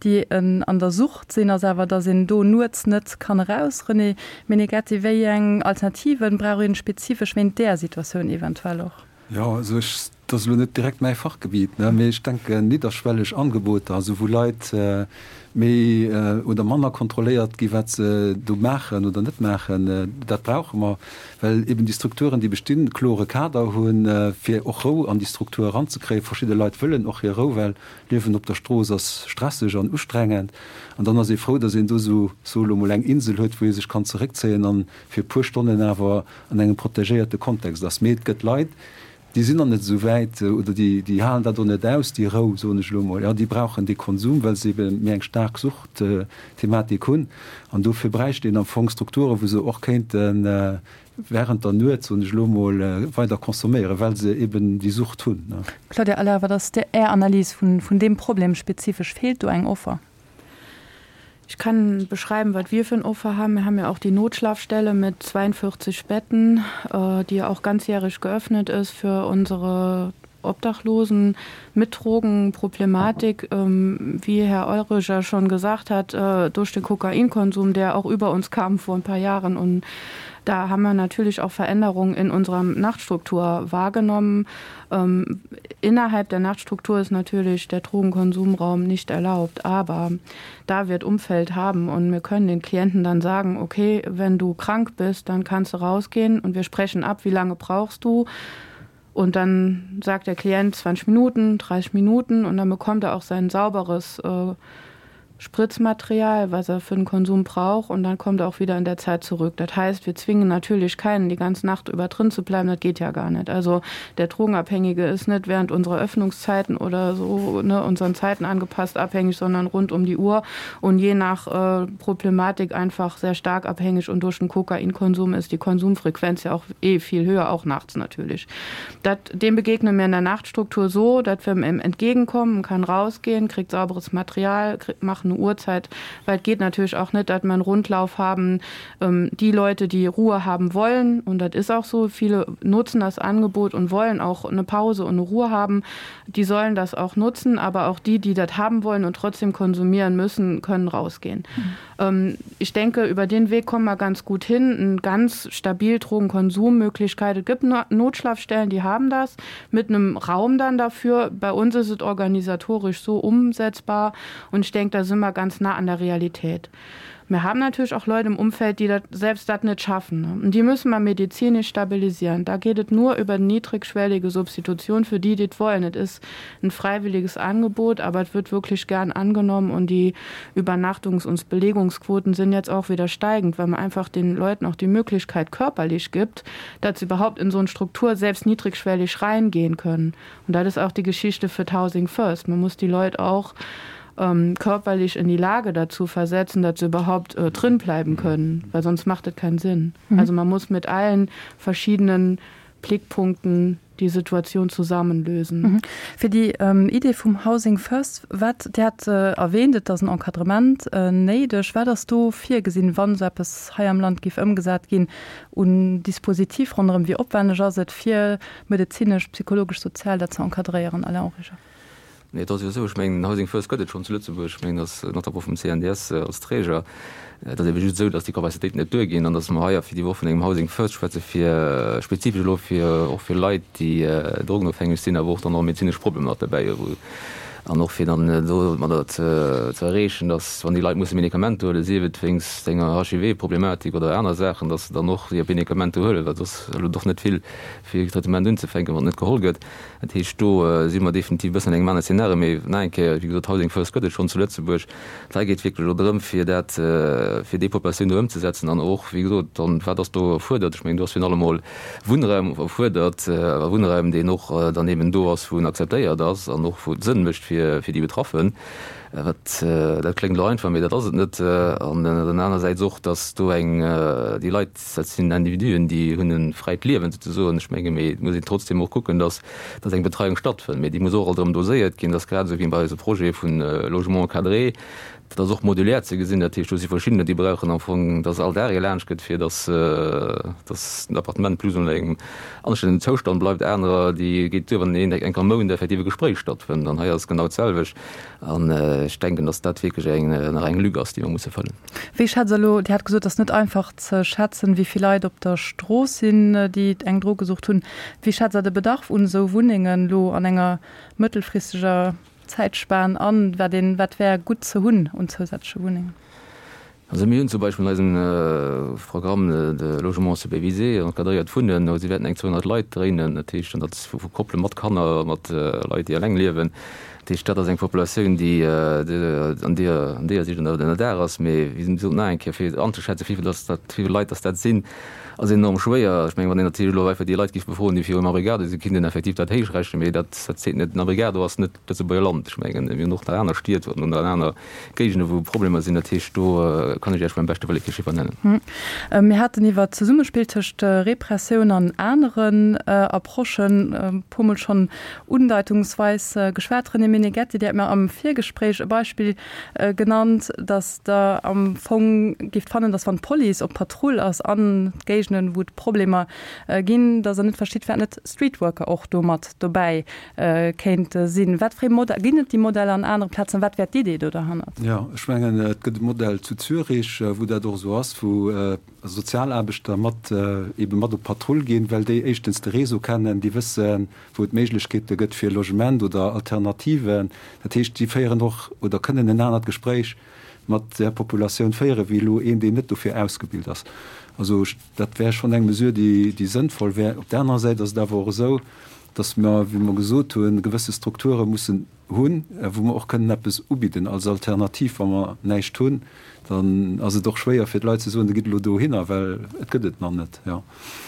déi an der Sucht sinn, ass awer, datt een do nuets net kann eraus. René Meneghetti, wéi eng Alternative brauch een spezifesch wéint där Situatioun eventuell och? Jo, also ech, dat ass elo net direkt mäi Fachgebiet, ne, mee ech denken nidderschwelleg Angeboter, also wou Leit méi oder manner kontrolléiert gi wat se do maachen oder net maachen, dat brauche mer, well eben déi Strukturen, déi bestinn, e klore Kader hunn, fir och Rou an déi Struktur eranzekréien. Verschidde Leit wëllen och hir Rou, well Liewen op der Strooss ass stresseg an ustrengend an dann ass ee frou, datt een do esou, soe elo mol, eng Insel huet, wou ee sech kann zeréckzéien an fir e puer Stonnen awer an engem protegéierte Kontext ass. Mee et gëtt Leit, déi sinn nach net esou wäit oder déi, déi halen dat och net aus, déi Rou, soen ech elo emol. Jo, déi brauchen dee Konsum, well se ebe méi eng staark Suchtthematik hunn. An dofir bräicht een am Fong Strukturen, wou se och kéinte während der Nuet, soen ech elo emol, weider consomméieren, well se eben déi Sucht hunn. Claudia Aller, wat ass Är Analys vun deem Problem spezifesch? Feelt do eng Offer? Ich kann beschreiben, was wir für ein Offer haben. Wir haben ja auch die Notschlafstelle mit 42 Betten, äh, die auch ganzjährig geöffnet ist für unsere Obdachlosen mit Drogenproblematik, ähm, wie Herr Eurich ja schon gesagt hat, äh, durch den Kokainkonsum, der auch über uns kam vor ein paar Jahren. Und da haben wir natürlich auch Veränderungen in unserer Nachtstruktur wahrgenommen. Ähm, innerhalb der Nachtstruktur ist natürlich der Drogenkonsumraum nicht erlaubt, aber da wird Umfeld haben und wir können den Klienten dann sagen, okay, wenn du krank bist, dann kannst du rausgehen und wir sprechen ab, wie lange brauchst du. Und dann sagt der Klient 20 Minuten, 30 Minuten und dann bekommt er auch sein sauberes äh, Spritzmaterial, was er für den Konsum braucht und dann kommt er auch wieder in der Zeit zurück. Das heißt, wir zwingen natürlich keinen, die ganze Nacht über drin zu bleiben, das geht ja gar nicht. Also der Drogenabhängige ist nicht während unserer Öffnungszeiten oder so ne, unseren Zeiten angepasst abhängig, sondern rund um die Uhr und je nach äh, Problematik einfach sehr stark abhängig und durch den Kokainkonsum ist die Konsumfrequenz ja auch eh viel höher, auch nachts natürlich. Dat, dem begegnen wir in der Nachtstruktur so, dass wir ihm entgegenkommen, kann rausgehen, kriegt sauberes Material, kriegt, macht eine Uhrzeit, weil es geht natürlich auch nicht, dass wir einen Rundlauf haben. Ähm, die Leute, die Ruhe haben wollen, und das ist auch so, viele nutzen das Angebot und wollen auch eine Pause und eine Ruhe haben, die sollen das auch nutzen, aber auch die, die das haben wollen und trotzdem konsumieren müssen, können rausgehen. Mhm. Ähm, ich denke, über den Weg kommen wir ganz gut hin. Ein ganz stabil Drogenkonsummöglichkeit. Es gibt Notschlafstellen, die haben das mit einem Raum dann dafür. Bei uns ist es organisatorisch so umsetzbar und ich denke, da sind wir ganz nah an der Realität. Wir haben natürlich auch Leute im Umfeld, die dat selbst das nicht schaffen. Ne? Und die müssen wir medizinisch stabilisieren. Da geht es nur über niedrigschwellige Substitution für die, die es wollen. Es ist ein freiwilliges Angebot, aber es wird wirklich gern angenommen und die Übernachtungs- und Belegungsquoten sind jetzt auch wieder steigend, weil man einfach den Leuten auch die Möglichkeit körperlich gibt, dass sie überhaupt in so eine Struktur selbst niedrigschwellig reingehen können. Und das ist auch die Geschichte für Housing First. Man muss die Leute auch ähm, körperlich in die Lage dazu versetzen, dass sie überhaupt äh, drin bleiben können, weil sonst macht es keinen Sinn. Mhm. Also man muss mit allen verschiedenen Blickpunkten die Situation zusammenlösen. Mhm. Fir déi ähm, Idee vum Housing First, wat Dir hat äh, erwähnt, et ass en Encadrement äh, néideg. Wat ass do virgesinn, wann esou eppes hei am Land géif ëmgesat ginn, un Dispositif ronderëm? Wéi opwenneg ass et, fir medezinesch, psychologesch, sozial dat ze encadréieren? Alain Origer. Nee, et ass jo esou, ech mengen, den Housing First gëtt et schonn zu Lëtzebuerg. Ech mengen, datt notamment vum CNDS als Träger. Et ass ebe just esou, datt déi Capacitéiten net duerginn an datt mer hei fir déi Woch vun engem Housing First schwätze fir spezifesch elo fir och fir Leit, déi drogenofhängeg sinn, awer och dann och medezinesch Problemer mat derbäi hu wou an och fir dann domadder ze ze erreechen, datt wann déi Leit musse Medikamenter huelen, sief et wéinst enger HIV-Problematik oder aner Saachen, datt se dann och hir Medikamenter huelen, well soss elo doch net vill fir e Traitement unzefänken, wann et net geholl gëtt. Dat heescht, do si mer definitiv e bëssen an engem anere Szenario. Mee nach eng Kéier, wéi gesot, Housing First gëtt et schonn zu Lëtzebuerg. Et geet wierklech elo drëm, fir dat, fir déi Populatioun do ëmzesetzen an och, wéi gesot, dann, wat ass do erfuerdert? Ech mengen, do ass virun allem emol Wunnraum erfuerdert, a Wunnraum, deen och dann eben do ass, wou en akzeptéiert ass an och wou et Sënn mécht fir, fir déi Betraffen. Wat, dat kléngt elo einfach, mee dat ass et net. An dann anersäits och, dass do eng, déi Leit, Dat sinn Individuen, déi hunn e fräit Liewen souzesoen. Ech menge mee et muss een trotzdem och kucken, datt datt eng Betreiung stattfënnt. Mee déi muss och alt erëm doséiert ginn. Dat ass grad esou wéi bei eise Projet vu Logement encadré. Dat ass och modulär ze gesinn. Dat heescht, do si verschiddener, déi brauchen am Fong, datt all Dag ee laanscht gëtt, fir datt datt den Appartement plus ou moins an engem anstännegen Zoustand bleift. Anerer, déi geet duer, wann een eng Kéier am Mount effektiv e Gespréich stattfënnt. An hei ass et genau d'selwecht. An ech denken, datt dat wierklech eng nach eng Lück ass, déi mer musse fëllen. Wéi schätzt Der elo, Dir hat gesot, et ass net einfach ze schätzen, wéi vill Leit op der Strooss sinn, déi eng Drogesucht hunn. Wéi schätzt Der de Bedarf un esou Wunnengen elo an enger mëttelfristeger Zäitspan an? Wat een, wat wär gutt ze hunn un zousätzleche Wunnengen? Also mir hunn zum Beispill an eisem Programme de Logement supervisé encadréiert Wunnen, do si wäerten eng 200 Leit dréinen, dat heescht, an dat vu Koppele mat Kanner, mat Leit, déi eleng liewen. Dat heescht, dat ass eng Populatioun, déi an deeër an deeër Siicht ënnerdaach ass. Mee wéi gesot, nach eng Kéier, fir anzeschätzen, wéi vill dass dat, wéi vill Leit dass dat sinn, ass enorm schwéier. Ech mengen, wann een natierlech elo einfach déi Leit géif befroen, déi virum Abrigado sinn, kéint een effektiv dat héich rechnen. Mee dat, dat seet net. Den Abrigado ass net d'Lëtzebuerger Land. Ech mengen, mir hunn och nach aner Stied oder aner Géigende wou Problemer sinn. Dat heescht, do kann ech Iech beim beschte Wëlle kee Chiffer nennen. Mir haten iwwert d'Zesummespill tëscht Repressioun an aneren Approchen e puermol schonn undeitungsweis geschwat. René Meneghetti, Dir hat mir am Virgespréich e Beispill genannt, datt Der am Fong géift fannen, datt wann d'Police op Patrull ass an Géigenden, wou et Problemer ginn, datt Der net verstitt, firwat net Streetworker och do mat dobäi kéinte sinn. Wat fir ee Modell, ginn et déi Modeller an anere Plazen? Wat wär d'Idee do derhannert? Jo, ech mengen, et gëtt e Modell zu Zürich, wou dat och esou ass, wou Sozialaarbechter mat eebe mat op Patrull ginn, well déi éischtens de Réseau kennen, déi wëssen, wou et Méiglechkeete gëtt fir Logement oder Alternativen. Dat heescht, déi féieren och oder kënnen en anert Gespréich mat där Populatioun féieren, wéi elo een, deen net dofir ausgebilt ass. Also dat wär schonn eng Mesure, déi, déi sënnvoll wär. Op där anerer Säit ass et awer och esou, dass mer, wéi mer gesot hunn, gewësse Strukture mussen hunn, wou mer och kënnen eppes ubidden als Alternativ. Wa mer näischt hunn, dann ass et och schwéier fir d'Leit ze soen, da gitt elo dohinner, well et gëtt et nach net. Jo.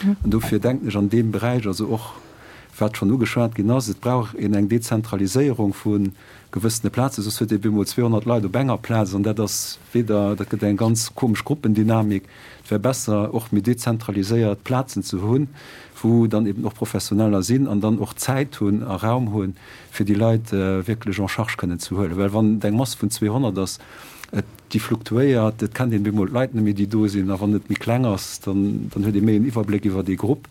An dofir denken ech an deem Beräich, also och wat schonn ugeschwat ginn ass, et brauch een eng Dezentraliséierung vu gewëssene Plazen, soss huet ee bemol 200 Leit op enger Plaz an dat ass weder, dat gëtt eng ganz komesch Gruppendynamik. Et wär besser och méi dezentraliséiert Plazen ze hunn, wou dann eben och Professioneller sinn an dann och Zäit hunn a Raum hunn, fir déi Leit wierklech en charge kënnen ze huelen. Well wann et eng Mass vun 200 ass, et, déi fluktuéiert, et kennt een bemol d'Leit net méi, déi do sinn, a wann et méi kleng ass, dann, dann huet ee méi en Iwwerbléck iwwer dee Grupp.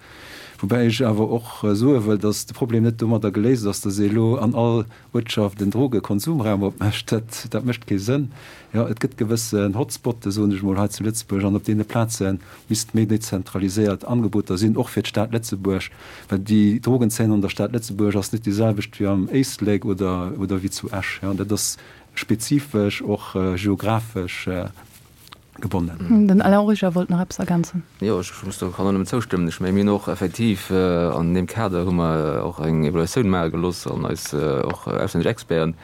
Woubäi ech awer och soe wëll, datt de Problem net domadder geléist ass, datt ee elo an all Uertschaft en Drogekonsumraum opmécht. Dat, dat mécht kee Sënn. Jo, et gëtt gewëssen Hotspotte, soen ech emol, hei zu Lëtzebuerg, an op deene Plaze misst méi dezentraliséiert Angeboter sinn, och fir d'Stad Lëtzebuerg, well déi Drogenzeen an der Stad Lëtzebuerg ass net déi selwecht wéi am Éislek oder, oder wéi zu Esch. Jo, dat ass spezifesch och geographesch gebonnen. Den Alain Origer wollt nach eppes ergänzen. Jo, ech muss do, kann do nëmmen zoustëmmen. Ech menge mir hunn och effektiv an deem Kader hu mer och eng Evaluatioun maache gelooss an eis och auslännesch Experten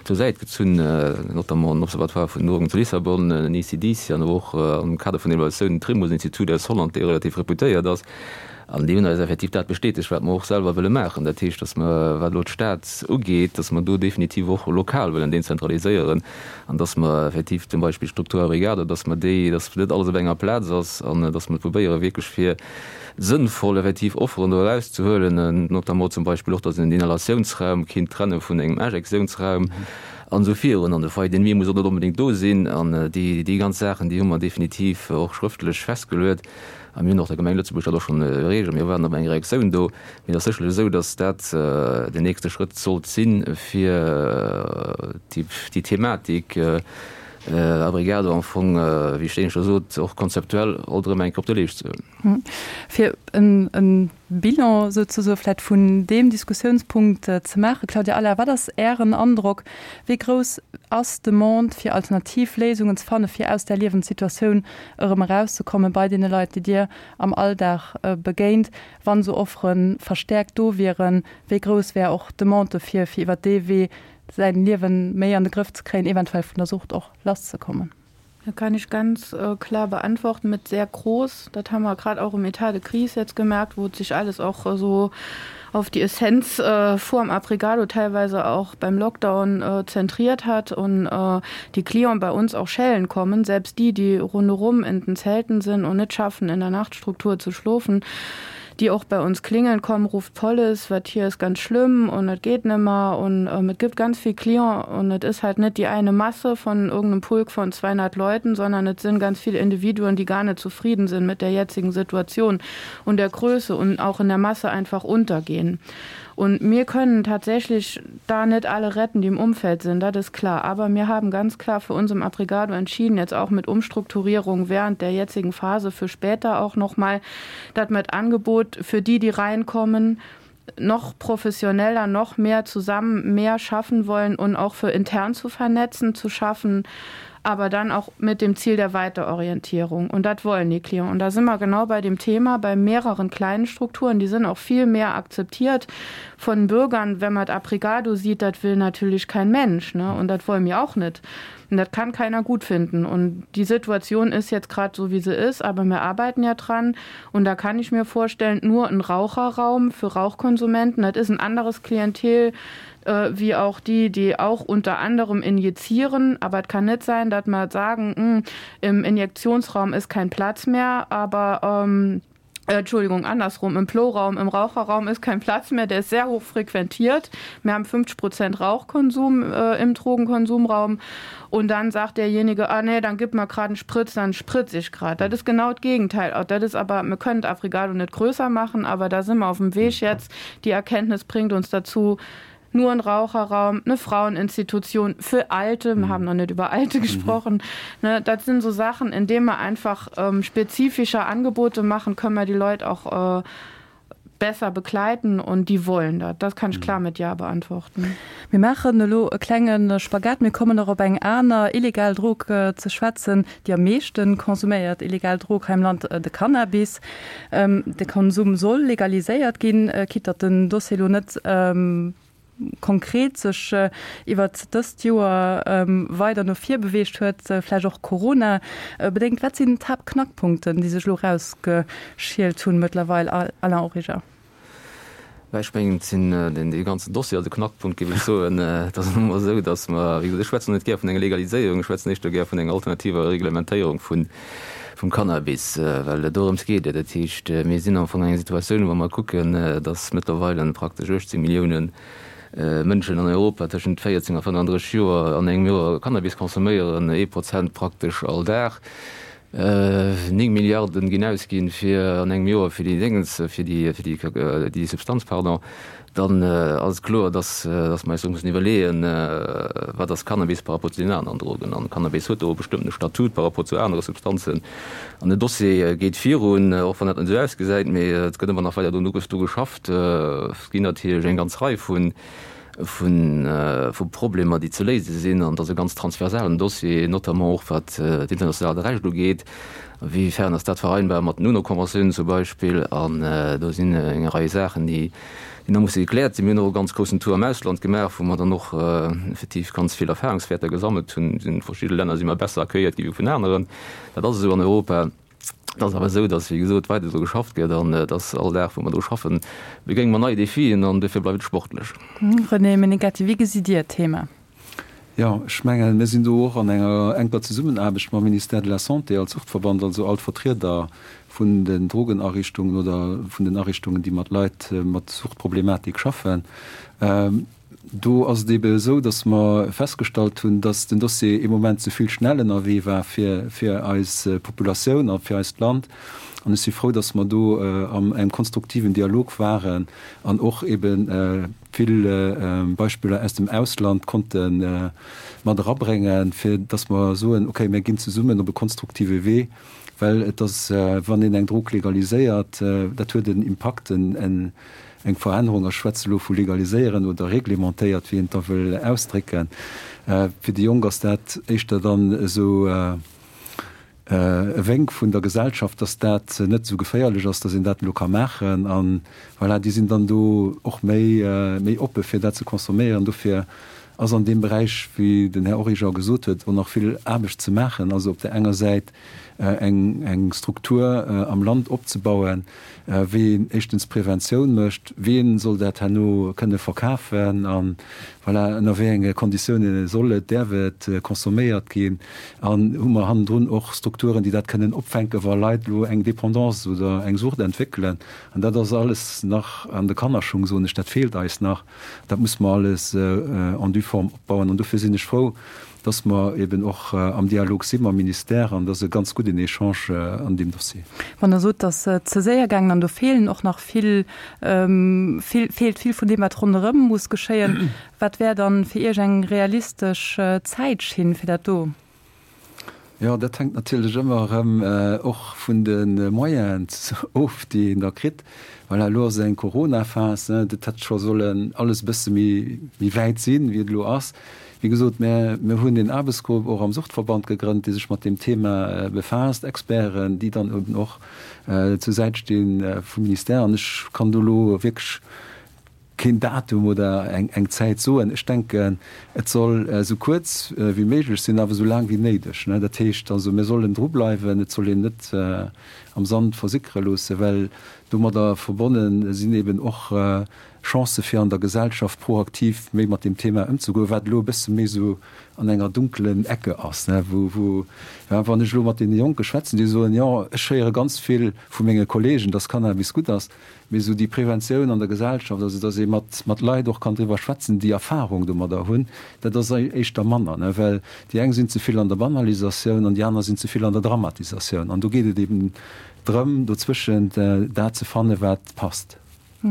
zur Säit gezunn, notamment den Observatoire vun den Drogen zu Lissabon, den ECDC an awer och am Kader vun der Evaluatioun den Trimbos-Institut aus Holland, dee relativ reputéiert ass. An déi hunn eis effektiv dat bestätegt, wat mer och selwer wëlle maachen. Dat heescht, datt mer, wat elo d'Stad ugeet, datt mer do definitiv och lokal wëllen dezentraliséieren an datt mer effektiv zum Beispill d'Struktur Abrigado, datt mer déi, datt net alles op enger Plaz ass an datt mer probéiere wierklech fir sënnvoll effektiv Offeren do erauszehuelen, notamment zum Beispill och, datt een den Inhalatiounsraum kinnt trenne vun engem Injektiounsraum an esou virun. An de Foyer de nuit muss och net onbedéngt do sinn. An déi, déi ganz Saachen, déi hu mer definitiv och schrëftlech festgeluet. A mir hunn och der Gemeng Lëtzebuerg dat och schonn erreecht a mir waarden op eng Reaktioun do. Mee et ass sécherlech esou, datt dat den nächste Schrëtt sollt sinn, fir déi Thematik Abrigado am Fong, wéi ech éineschter sot, och konzeptuell alt erëm eng Kéier op de Leescht ze huelen. Fir e Bilan souzesoe vläicht vun deem Diskussiounspunkt ze maachen, Claudia Allard, wat ass Ären Androck, wéi grouss ass d'Demande, fir alternativ Léisungen ze fannen, fir aus där Liewenssituatioun erëm erauszekommen bei deene Leit, déi Dir am Alldag begéint, wann esou Offere verstäerkt do wieren? Wéi grouss wär och d'Demande dofir, fir iwwert dee Wee säin Liewen méi an de Grëff ze kréien, eventuell vun der Sucht och lasszekommen? Da kann ich ganz klar beantworten mit sehr groß. Dat haben wir grad auch im État de crise jetzt gemerkt, wo sich alles auch so auf die Essenz vorm Abrigado teilweise auch beim Lockdown zentriert hat und die Clients bei uns auch schellen kommen, selbst die, die rundherum in den Zelten sind und nicht schaffen, in der Nachtstruktur zu schlofen, die auch bei uns klingeln kommen, ruft Police, wat hier ist ganz schlimm und et geht nimmer und ähm, et gibt ganz viel Client und et ist halt net die eine Masse von irgendeinem Pulk von 200 Leuten, sondern et sind ganz viele Individuen, die gar nicht zufrieden sind mit der jetzigen Situation und der Größe und auch in der Masse einfach untergehen. Und mir können tatsächlich da net alle retten, die im Umfeld sind, dat ist klar. Aber mir haben ganz klar für uns im Abrigado entschieden, jetzt auch mit Umstrukturierung während der jetzigen Phase für später auch noch mal, dat mit Angebot für die, die reinkommen, noch professioneller, noch mehr zusammen mehr schaffen wollen und auch für intern zu vernetzen, zu schaffen, aber dann auch mit dem Ziel der Weiterorientierung. Und dat wollen die Klienten. Und da sind wir genau bei dem Thema, bei mehreren kleinen Strukturen, die sind auch viel mehr akzeptiert von Bürgern. Wenn man Abrigado sieht, dat will natürlich kein Mensch ne? und dat wollen wir auch nicht. Und dat kann keiner gut finden. Und die Situation ist jetzt grad so, wie sie ist, aber wir arbeiten ja dran. Und da kann ich mir vorstellen, nur ein Raucherraum für Rauchkonsumenten, dat ist ein anderes Klientel äh, wie auch die, die auch unter anderem injizieren. Aber et kann net sein, dat mer sagen, hm, im Injektionsraum ist kein Platz mehr, aber ähm, äh, Entschuldigung, andersrum, im Ploraum, im Raucherraum ist kein Platz mehr, der ist sehr hoch frequentiert. Wir haben 50 Prozent Rauchkonsum äh, im Drogenkonsumraum. Und dann sagt derjenige, ah nee, dann gib mal grad einen Spritz, dann spritz ich grad. Das ist genau das Gegenteil. Auch das ist aber, wir können Afrigado nicht größer machen, aber da sind wir auf dem Weg jetzt. Die Erkenntnis bringt uns dazu, nur ein Raucherraum, eine Fraueninstitution für Alte, wir haben noch nicht über Alte gesprochen. Ne, das sind so Sachen, in denen wir einfach ähm, spezifischer Angebote machen, können wir die Leute auch äh, besser begleiten und die wollen dat. Das kann ich klar mit Ja beantworten. Mir maachen elo e klenge Spagat. Mir kommen och op eng aner illegal Drog ze schwätzen, déi am meeschte konsuméiert illegal Drog hei am Land, de Cannabis. De Konsum soll legaliséiert ginn, quitte datt den Dossier elo net konkret sech iwwert dëst Joer weider no vir beweegt huet, vläicht och Corona bedéngt. Wat sinn d'Haaptknackpunkten, déi sech elo erausgeschielt hunn mëttlerweil, Alain Origer? Mä ech mengen, et sinn dee ganzen Dossier ass e Knackpunkt, géif ech soen. Et ass nun emol esou, datt mer, wéi gesot, ech schwätzen net gär vun enger Legaliséierung, ech schwätzen éischter gär vun enger alternativer Reglementéierung vun, vum Cannabis, well et dorëms geet. Dat heescht, mir sinn am Fong an enger Situatioun, wa mer kucken, datt mëttlerweile praktesch 18 Milliounen Mënschen an Europa tëschent 14 a 35 Joer an engem Joer Cannabis consomméieren, ee Prozent praktesch all Dag. 9 Milliarden ginn ausginn fir an engem Joer fir déi Déngens, fir déi, fir déi, déi Substanz, pardon, dann ass et kloer, dass, dass mer eis do mussen iwwerleeën, wat ass Cannabis par rapport zu den aneren Drogen. An Cannabis huet do e bestëmmtene Statut par rapport zu anere Substanzen. An den Dossier geet virun, och wann dat net esou ausgesäit, mee et gëtt ëmmer nach weider do do geschafft. Et ginn natierlech eng ganz Rei vun, vu Problemer, déi ze léise sinn, an et ass e ganz transversalen Dossier, notamment och wat d'internationaalt Recht ugeet. A wéi fern ass dat vereinbar mat den UNO-Konventiounen zum Beispill? An do sinn eng Rei Saachen, déi nach musse gekläert sinn. Mir hunn och e ganz groussen Tour am Ausland gemaach, wou mer dann och effektiv ganz vill Erfahrungswäerter gesammelt hunn. A verschidde Länner si mer besser accueilliert gi wéi vun aneren. Dat ass esou an Europa. Et ass awer esou, datt, wéi gesot, weider dru geschafft gëtt an datt all Dag, wou mer dru schaffen, begéinge mer nei Defien an dofir bleift et sportlech. René Menegatti, wéi gesitt Dir d'Thema? Jo, ech mengen, mir sinn do och an enger enker Zesummenaarbecht mam Ministère de la Santé als Suchtverband, also all d'Vertrieder vun den Drogenariichtungen oder vun den Ariichtungen, déi mat Leit mat Suchtproblematik schaffen. Do ass et eebe esou, datt mer festgestallt hunn, datt den Dossier ee Moment ze vill schnell ënnerwee war fir fir eis Populatioun a fir eist Land. An ech si frou, datt mer do an engem konstruktiven Dialog waren an och eebe vill Beispiller aus dem Ausland konnte mat erabréngen, fir datt mer soen, okay, mir ginn zesummen op e konstruktive Wee, well et ass, wann een eng Drog legaliséiert, dat huet en Impakt, en Eng Verännerung, ech schwätze elo vu legaliséieren oder reglementéiert, wéi een et da wëll ausdrécken, fir déi Jonk ass dat éischter dann esou e Wénk vun der Gesellschaft, dass dat net esou geféierlech ass, dass een dat elo ka maachen. A voilà, déi sinn dann do och méi, méi oppe fir dat ze consomméieren. Dofir ass an deem Beräich, wéi den Här Origer gesot huet, och nach vill Aarbecht ze maachen. Also op där enger Säit eng, eng Struktur am Land opzebauen, wéi een éischtens Preventioun mécht, wien soll dat herno kënne verkafen a voilà, ënner wéi enge Konditioune soll et, däerf et consomméiert ginn an hu mer hannendrun och Strukturen, déi dat kënnen opfänken, wa Leit elo eng Dépendance oder eng Sucht entwéckelen. An dat ass alles nach an de Kannerschung, soen ech, dat feelt eis nach, dat muss mer alles en due forme opbauen an dofir sinn ech frou, dass mer eben och am Dialog si mam Ministère an dass e ganz gudden Echange an deem Dossier. Wann Der sot, dass et ze séier gaangen an do feelen och nach vill, vill, feelt vill vun deem, wat ronderëm muss geschéien, wat wär dann fir Iech eng realistesch Zäitschinn fir dat do? Jo, dat hänkt natierlech ëmmer erëm och vun de Moyenen of, déi een da kritt. Voilà, elo ass eng Corona-Phas, dat hätt scho sollen alles e bësse méi wäit sinn, wéi et elo ass. Wéi gesot, mir hunn een Aarbechtsgrupp och am Suchtverband gegrënnt, dee sech mat deem Thema befaasst, Experten, déi dann eben och zur Säit sti vum Ministère. An ech kann do elo wierklech keen Datum oder eng Zäit soen. Ech denken, et soll esou kuerz wéi méiglech sinn, awer esou laang wéi néideg. Dat heescht also, mir sollen drubleiwen, et soll een net am Sand versickere loossen, well domadder verbonne sinn eben och Chancë fir an der Gesellschaft proaktiv méi mat deem Thema ëmzegoen, wat elo e bësse méi esou an enger dunkelen Ecke ass, wou, wou, wann ech elo mat deene Jonke schwätzen, déi soen, jo, ech héiere ganz vill vu menge Kollegen, dass Cannabis gutt ass, mee esou déi Preventioun an der Gesellschaft, also dass ee mat, mat Leit och kann driwwer schwätzen, déi Erfahrung domadder hunn, dat ass éischter manner, well déi eng sinn ze vill an der Banalisatioun an déi aner sinn ze vill an der Dramatisatioun. An do geet et eben drëm, dozwëschent dat ze fannen, wat passt.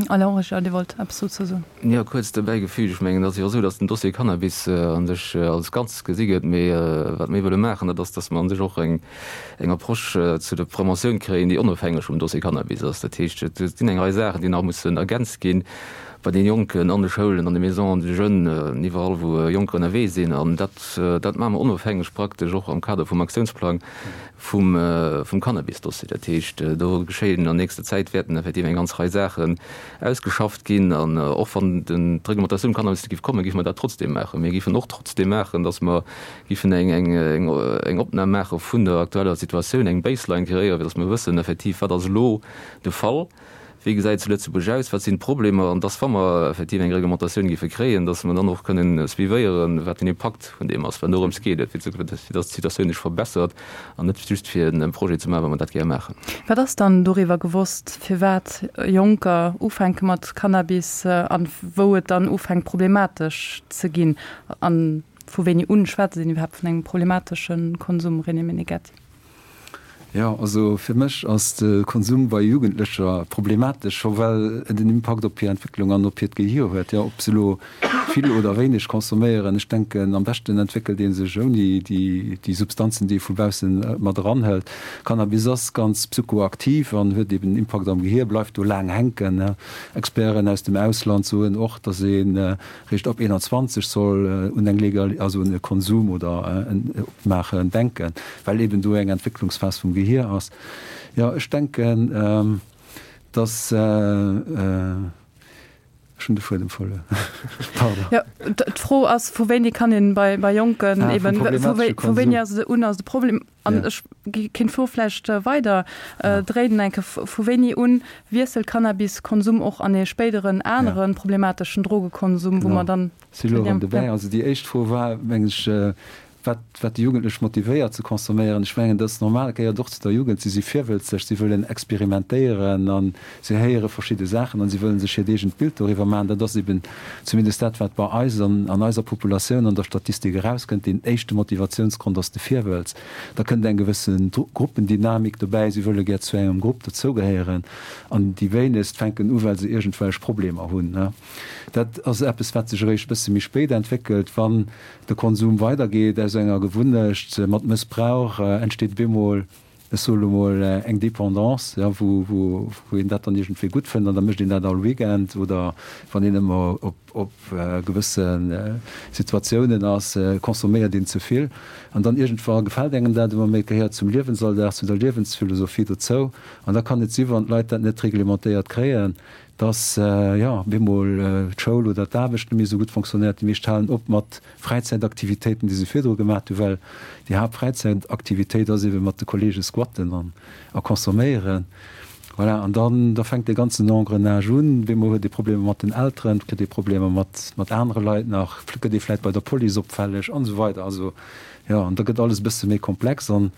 Alain Origer, Dir wollt eppes dozou soen? Jo, kuerz dobäi gefügt, ech mengen, et ass jo och esou, datt den Dossier Cannabis a sech als Ganzes gesi gëtt. Mee wat mir wëlle maachen, dat ass, datt mer a sech och eng Approche zu der Preventioun kréien, déi onofhängeg vum Dossier Cannabis ass. Dat heescht, et sinn eng Rei Saachen, déi nach mussen ergänzt ginn bei deene Jonken an de Schoulen, an de Maisons de jeunes, iwwerall wou Jonker ënnerwee sinn. An dat, dat maache mer onofhängeg praktesch och am Kader vum Aktiounsplang vum vum Cannabis-Dossier. Dat heescht, do geschéien an nächster Zäit wäerten effektiv eng ganz Rei Saachen ausgeschafft ginn. An och wann den d'Reglementatioun Cannabis net géif kommen, géife mer dat trotzdem maachen. Mir géifen och trotzdem maachen, datt mer géifen eng eng eng eng Opnam maache vun der aktueller Situatioun, eng Baseline kreéieren, fir datt mer wëssen effektiv, wat ass elo de Fall. Wéi gesäit et zu Lëtzebuerg aus? Wat sinn d'Problemer? An dass, wa mer effektiv eng Reglementatioun géife kréien, dass mer dann och kënnen suivéieren, wat den Impakt vun deem ass. Well dorëms geet et, fir dass d'Situatioun sech verbessert an net just fir e Projet ze maachen, well mer dat gär maachen. Wat ass dann doriwwer gewosst, firwat Jonker ufänke mat Cannabis a wou et dann ufänkt problematesch ze ginn? A vu wéini un schwätzt een iwwerhaapt vun engem problematesche Konsum, René Meneghetti? Jo, also fir mech ass de Konsum bei Jugendlecher problematesch, scho well et en Impakt op hir Entwécklung an op hiert Gehier huet. Jo, ob se elo vill oder wéineg consomméieren, ech denken, am beschten entwéckelt ee sech ouni déi Substanzen, déi ee vu baussen mat eranhëlt. Cannabis ass ganz psychoaktiv an huet eben en Impakt am Gehier, bleift do laang hänken. Experten aus dem Ausland soen och, datt ee Réischt ab 21 soll un eng Legal, also un e Konsum oder en Opmaachen denken, well eben do eng Entwécklungsphas vum Gehier ass. Jo, ech denken, dass, ech hunn de Fuedem verluer, pardon. Jo, d'Fro ass, vu wéini kann een bei Jonken eben, vu wéini ass un ass de Problem? An ech kéint d'Fro vläicht weider dréinen eng Kéier, Vu wéini un wiesselt Cannabiskonsum och an ee spéideren anere problemateschen Drogekonsum, wou mer dann. Si elo erëm dobäi. Also déi éischt Fro war, mengen ech, wat wat déi Jugendlech motivéiert ze consomméieren. Ech mengen, dat ass normal, gehéiert och zu der Jugend. Si si virwëlzeg, si wëllen experimentéieren a si héiere verschidde Saachen an si wëllen sech hiert eegent Bild doriwwer maachen. Dat ass eben zumindest dat, wat bei eis an an eiser Populatioun an der Statistik erauskënnt. Deen éischte Motivatiounsgrond ass de Virwëlz. Da kënnt eng gewësse Gruppendynamik dobäi, si wëlle gär zu engem Grupp dozougehéieren an déi wéinegst fänken u well se iergendwelch Problemer hunn. Dat ass eppes, wat sech eréischt e bësse méi spéit entwéckelt, wann de Konsum weidergeet. Aus enger Gewunnecht mat Mëssbrauch entsteet bemol, ech soe lo mol, eng Dépendance, jo, wou, wou een dat dann iergendwéi gutt fënnt an da mécht een dat all Weekend oder wann een ëmmer op, op gewësse Situatiounen ass, consomméiert een ze vill an dann iergendwa gefält engem dat ëmmer méi, et gehéiert zum Liewensalldag, zu der Liewensphilosophie dozou an da kann et si wann d'Leit dat net reglementéiert kréien, dass, jo, bemol d'Schoul oder d'Aarbecht net méi esou gutt fonctionnéiert. Déi meescht halen op mat Fräizäitaktivitéiten, déi se virdru gemaat hu, well déi Haaptfräizäitaktivitéit ass ebe mat de Kollege squatten an a consomméieren. Voilà, an dann, da fänkt dee ganzen Engrenage un. Bemol huet ee Problemer mat den Elteren, et kritt ee Problemer mat, mat anere Leit nach, gëtt ee vläit bei der Police opfälleg an esou weider. Also, jo, an da gëtt alles e bësse méi komplex an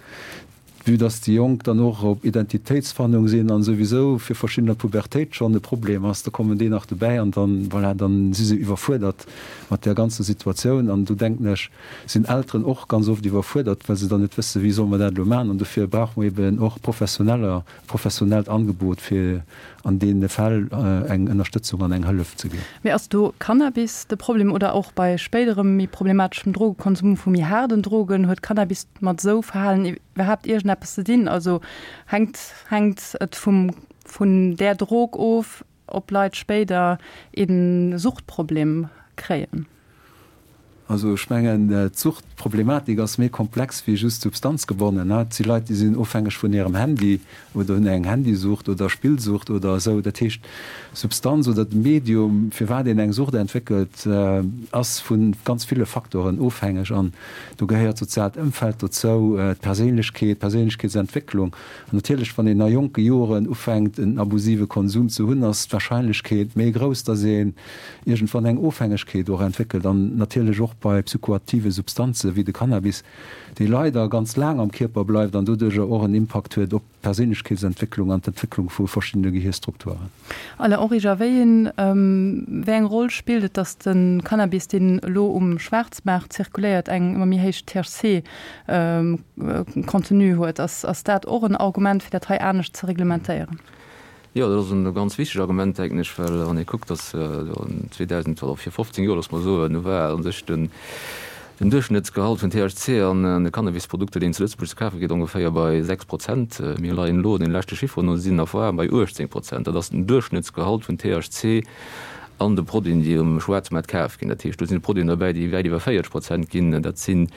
Vue dass déi Jonk dann och op Identitéitsfannung sinn an souwisou fir verschiddener Pubertéit schonn e Problem ass, da kommen déi nach dobäi an dann, voilà, dann si se iwwerfuerdert mat där ganzer Situatioun. An do denken ech, sinn Elteren och ganz oft iwwerfuerdert, well se dann net wëssen, wéi solle mer dat elo maachen. An dofir brauche mer eben och Professioneller, e professionellt Angebot, fir an deene Fäll eng Ënnerstëtzung an eng Hëllef ze ginn. Mee ass do Cannabis de Problem oder och bei spéiderem méi problemateschem Drogekonsum vu méi haarden Drogen, huet Cannabis mat esou Verhalen iwwerhaapt iergendeppes ze dinn? Also hänkt hänkt et vum vun där Drog of, ob Leit spéider ee Suchtproblem kréien? Also ech mengen, d'Suchtproblematik ass méi komplex wéi just substanzgebonnen. Et si Leit, déi sinn ofhängeg vun hirem Handy oder hunn eng Handysucht oder Spillsucht oder esou. Dat heescht, Substanz oder de Medium, firwat een eng Sucht entwéckelt, ass vu ganz ville Facteuren ofhängeg. An Do gehéiert d'soziaalt Ëmfeld dozou, d'Perséinlechkeet, d'Perséinlechkeetsentwécklung. An natierlech, wann een a jonke Joren ufänkt, en abusive Konsum ze hunn, ass d'Warscheinlechkeet méi grouss, dass een iergendwann eng Ofhängegkeet och entwéckelt. An natierlech och bei psychoaktive Substanze wéi de Cannabis, dee leider ganz laang am Kierper bleift an doduercher och en Impakt huet op d'Perséinlechkeetsentwécklung an d'Entwécklung vu verschiddene Gehierstrukturen. Alain Origer, wéi een, wéi eng Roll spillt et, datt de Cannabis, deen elo um Schwaarzmaart zirkuléiert, eng ëmmer méi héich THC-Contenu huet? Ass, ass dat och en Argument, fir dat hei anescht ze reglementéieren? Jo, dat ass e ganz wichteg Argument, denken ech, well wann ee kuckt, datt 2000 oder vir 15 Joer, loosse mer soen, do war u sech den Duerchschnëttsgehalt vun THC an de Cannabisprodukter, déi een zu Lëtzebuerg ze kafe kritt, ongeféier bei 6 Prozent. Mir leien elo, den leschte Chifferen no, sinn a bei 18 Prozent. Dat ass den Duerchschnëttsgehalt vun THC an de Produiten, déi um Schwaarzmaart kaf ginn. Dat heescht, do sinn Produiten derbäi, déi wäit iwwer 40 Prozent ginn. Dat sinn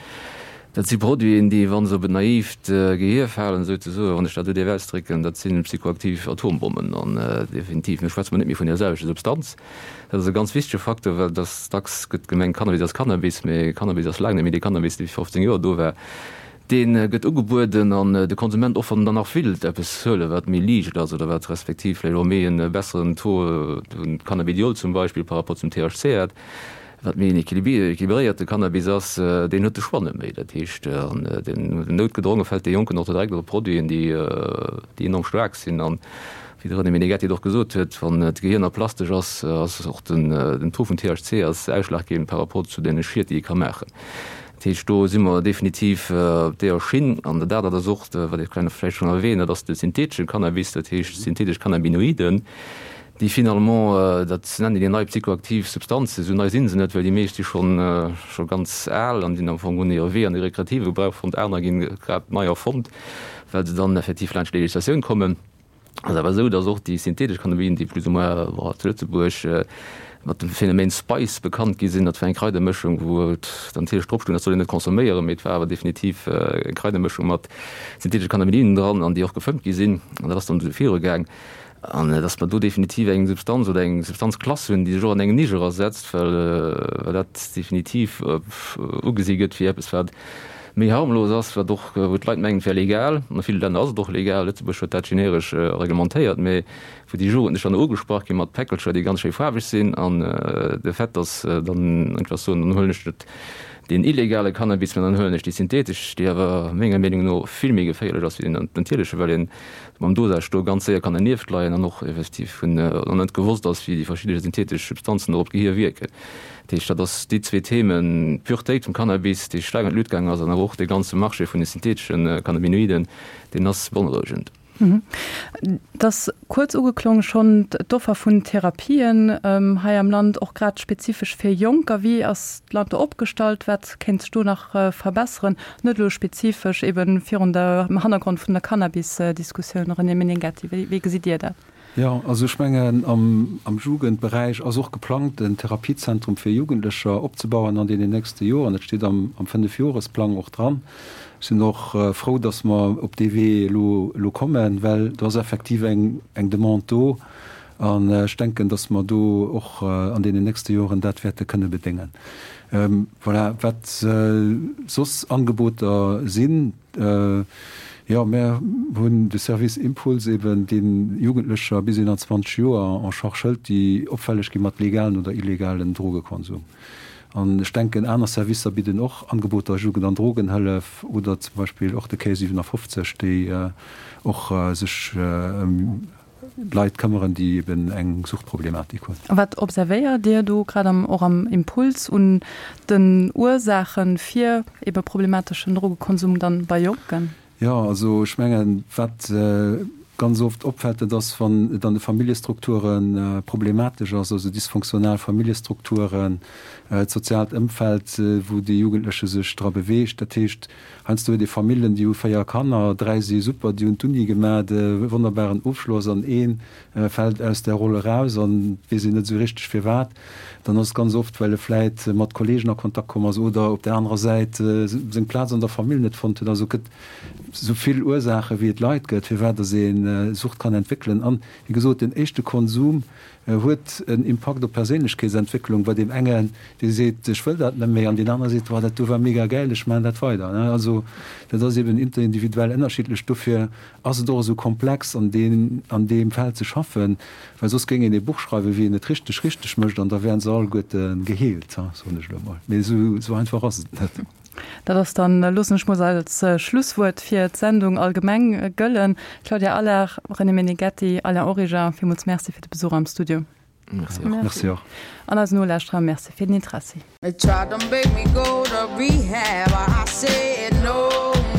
Dat si Produiten, déi, wa se op en naivt Gehier falen, souzesoen, wann ech dat esou dierf ausdrécken, dat si psychoaktiv Atombommen. An definitiv, do schwätze mer net méi vun där selwechter Substanz. Dat ass e ganz wichtege Facteur, well dass dacks gëtt gemengt, Cannabis ass Cannabis, mee Cannabis ass laang net méi dee Cannabis, dee vir 15 Joer do war. Dee gëtt ugebueden an de Konsument, och wann en dann nach willt eppes huelen, wat méi liicht ass oder wat respektiv vläicht och méi e besseren Taux vun Cannabidiol zum Beispill par rapport zum THC hat, Wat méi en équilibréierte Cannabis ass, deen huet de Choix net méi. Dat heescht, an den noutgedronge fält dee Jonken och direkt op Produiten, déi enorm staark sinn. An wéi de René Meneghetti et och gesot huet, wann d'Gehir nach plastesch ass, ass och den Taux vun THC ass ausschlaggebend par rapport zu deene Schied, déi e ka maachen. Dat heescht, do si mer definitiv op deeër Schinn. An dat anert ass och, wat ech vläicht schonn erwähnt, dat ass de syntheetesche Cannabis, dat heescht syntheetesch Cannabinoiden, déi finalement, dat nennen déi nei psychoaktiv Substanzen, esou nei si se net, well déi meescht si schonn scho ganz al an sinn am Fong hunn hire Wee an de rekreative Gebrauch fonnt, aner ginn grad nei erfonnt, well se dann effektiv laanscht d'Legislatioun kommen. Ass awer esou, datt och déi synthetesch Cannabinoiden, déi plus ou moins bon zu Lëtzebuerg mat dem Phänomen Spice bekannt gi sinn, dat war eng Kraidermëschung, wou et dann natierlech drop stoung, dat soll een net consomméieren, mee et war awer definitiv eng Kraidermëschung mat syntheetesche Cannabinoiden dran an déi och gefëmmt gi sinn an dat ass dann esou virugaang. An dass mer do definitiv eng Substanz oder eng Substanzklass hunn, déi sech och an eng Nisch erasetzt, well dat definitiv ugesi gëtt wéi eppes, wat méi harmlos ass, wat och, wou d'Leit mengen, et wär legal. An a ville Länner ass et och legal. Lëtzebuerg huet dat generesch reglementéiert, mä wou déi Jugendlech dann ugesprach gi mat Päckelcher, déi ganz schéi faarweg sinn, an de Fait, dass dann einfach soen, dann huelen ech net deen illegale Cannabis, mä dann huelen ech déi synthetesch, déi awer menger Meenung no vill méi geféierlech ass wéi deen natierlechen, well een mam Dosage do ganz séier kann dernieft leien an och effektiv vun an net gewosst ass, wéi déi verschidde synthetesch Substanzen do op d'Gehier wierken. Dat heescht, dat ass déi zwee Themen, d'Puretéit vum Cannabis, déi staark an d'Luut gaangen ass, an awer och dee ganze Marché vun de syntheteschen Cannabinoiden, deen ass beonrouegend. Et ass kuerz ugeklongen schonn, d'Offer vun Therapien hei am Land, och grad spezifesch fir Jonker. Wéi ass d'Land do opgestallt? Wat kéint sech do nach verbesseren? Net elo spezifesch eben virun der, am Hannergrond vun der Cannabis-Diskussioun, René Meneghetti, wéi, wéi gesitt Dir dat? Jo, also ech mengen, am, am Jugendberäich ass och geplangt, en Therapiezentrum fir Jugendlecher opzebauen an deenen nächste Joren. Dat steet am, am Fënnefjoresplang och dran. Ech sinn och frou, datt mer op dee Wee elo, elo kommen, well do ass effektiv eng, eng Demande do. An ech denken, dass mer do och an deenen nächste Joren dat wäerte kënne bedéngen. Voilà, wat soss Angeboter sinn, jo, mär hunn de Service Impuls eben, dee Jugendlecher bis 21 Joer en charge hëlt, déi opfälleg gi mat legalen oder illegalen Drogekonsum. An ech denken, aner Servicer bidden och Angeboter, Jugend an Drogenhëllef oder zum Beispill och de Quai 57, déi och sech ëm Leit këmmeren, déi eben eng Suchtproblematik hunn. A wat observéiert Dir do grad am, och am Impuls un den Ursaache fir ebe problemateschen Drogekonsum dann bei Jonken? Jo, also ech mengen, wat ganz oft opfält, dat ass, wann et an de Familljestrukture problematesch ass, also dysfonctional Familljestrukturen, d'soziaalt Ëmfeld, wou dee Jugendleche sech dra beweegt. Dat heescht, Heiansdo huet ee Famillen, déi hu 4 Kanner, 3 si super, déi hunn d'Uni gemat, e wonnerbaren Ofschloss, an ee fält aus där Roll eraus an et weess een net esou richteg firwat. Dann ass et ganz oft, well e vläit mat Kollegen a Kontakt komm ass oder op där anerer Säit seng Plaz an der Famill net fonnt huet. Also et gëtt esou vill Ursaache wéi et Leit gëtt, firwat datt ee Sucht kann entwéckelen. An, wéi gesot, den éischte Konsum huet en Impakt op d'Perséinlechkeetsentwécklung, bei deem engen, dee seet, ech wëll dat net méi, an deen anere seet, Woah, dat do war mega gäil, ech maachen dat weider. Also dat ass eben interindividuell ënnerschiddlech. Dofir ass et och esou komplex, an deem, an deem Feld ze schaffen, well soss géing een ee Buch schreiwen, wéi een et richteg, richteg mécht, an da wären se alleguerte geheelt, soen ech elo emol. Mee esou, esou einfach ass et net. Dat ass dann, loossen ech mol als Schlusswuert fir d'Sendung allgemeng gëllen. Claudia Allard, René Meneghetti, Alain Origer, villmools Merci fir de Besuch am Studio. Merci och. Merci och. An eisen Nolauschterer Merci fir den Interessi. They tried to make me go to rehab I said no,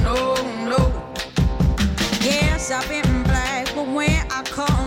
no, no Yes, I've been black, but when I come.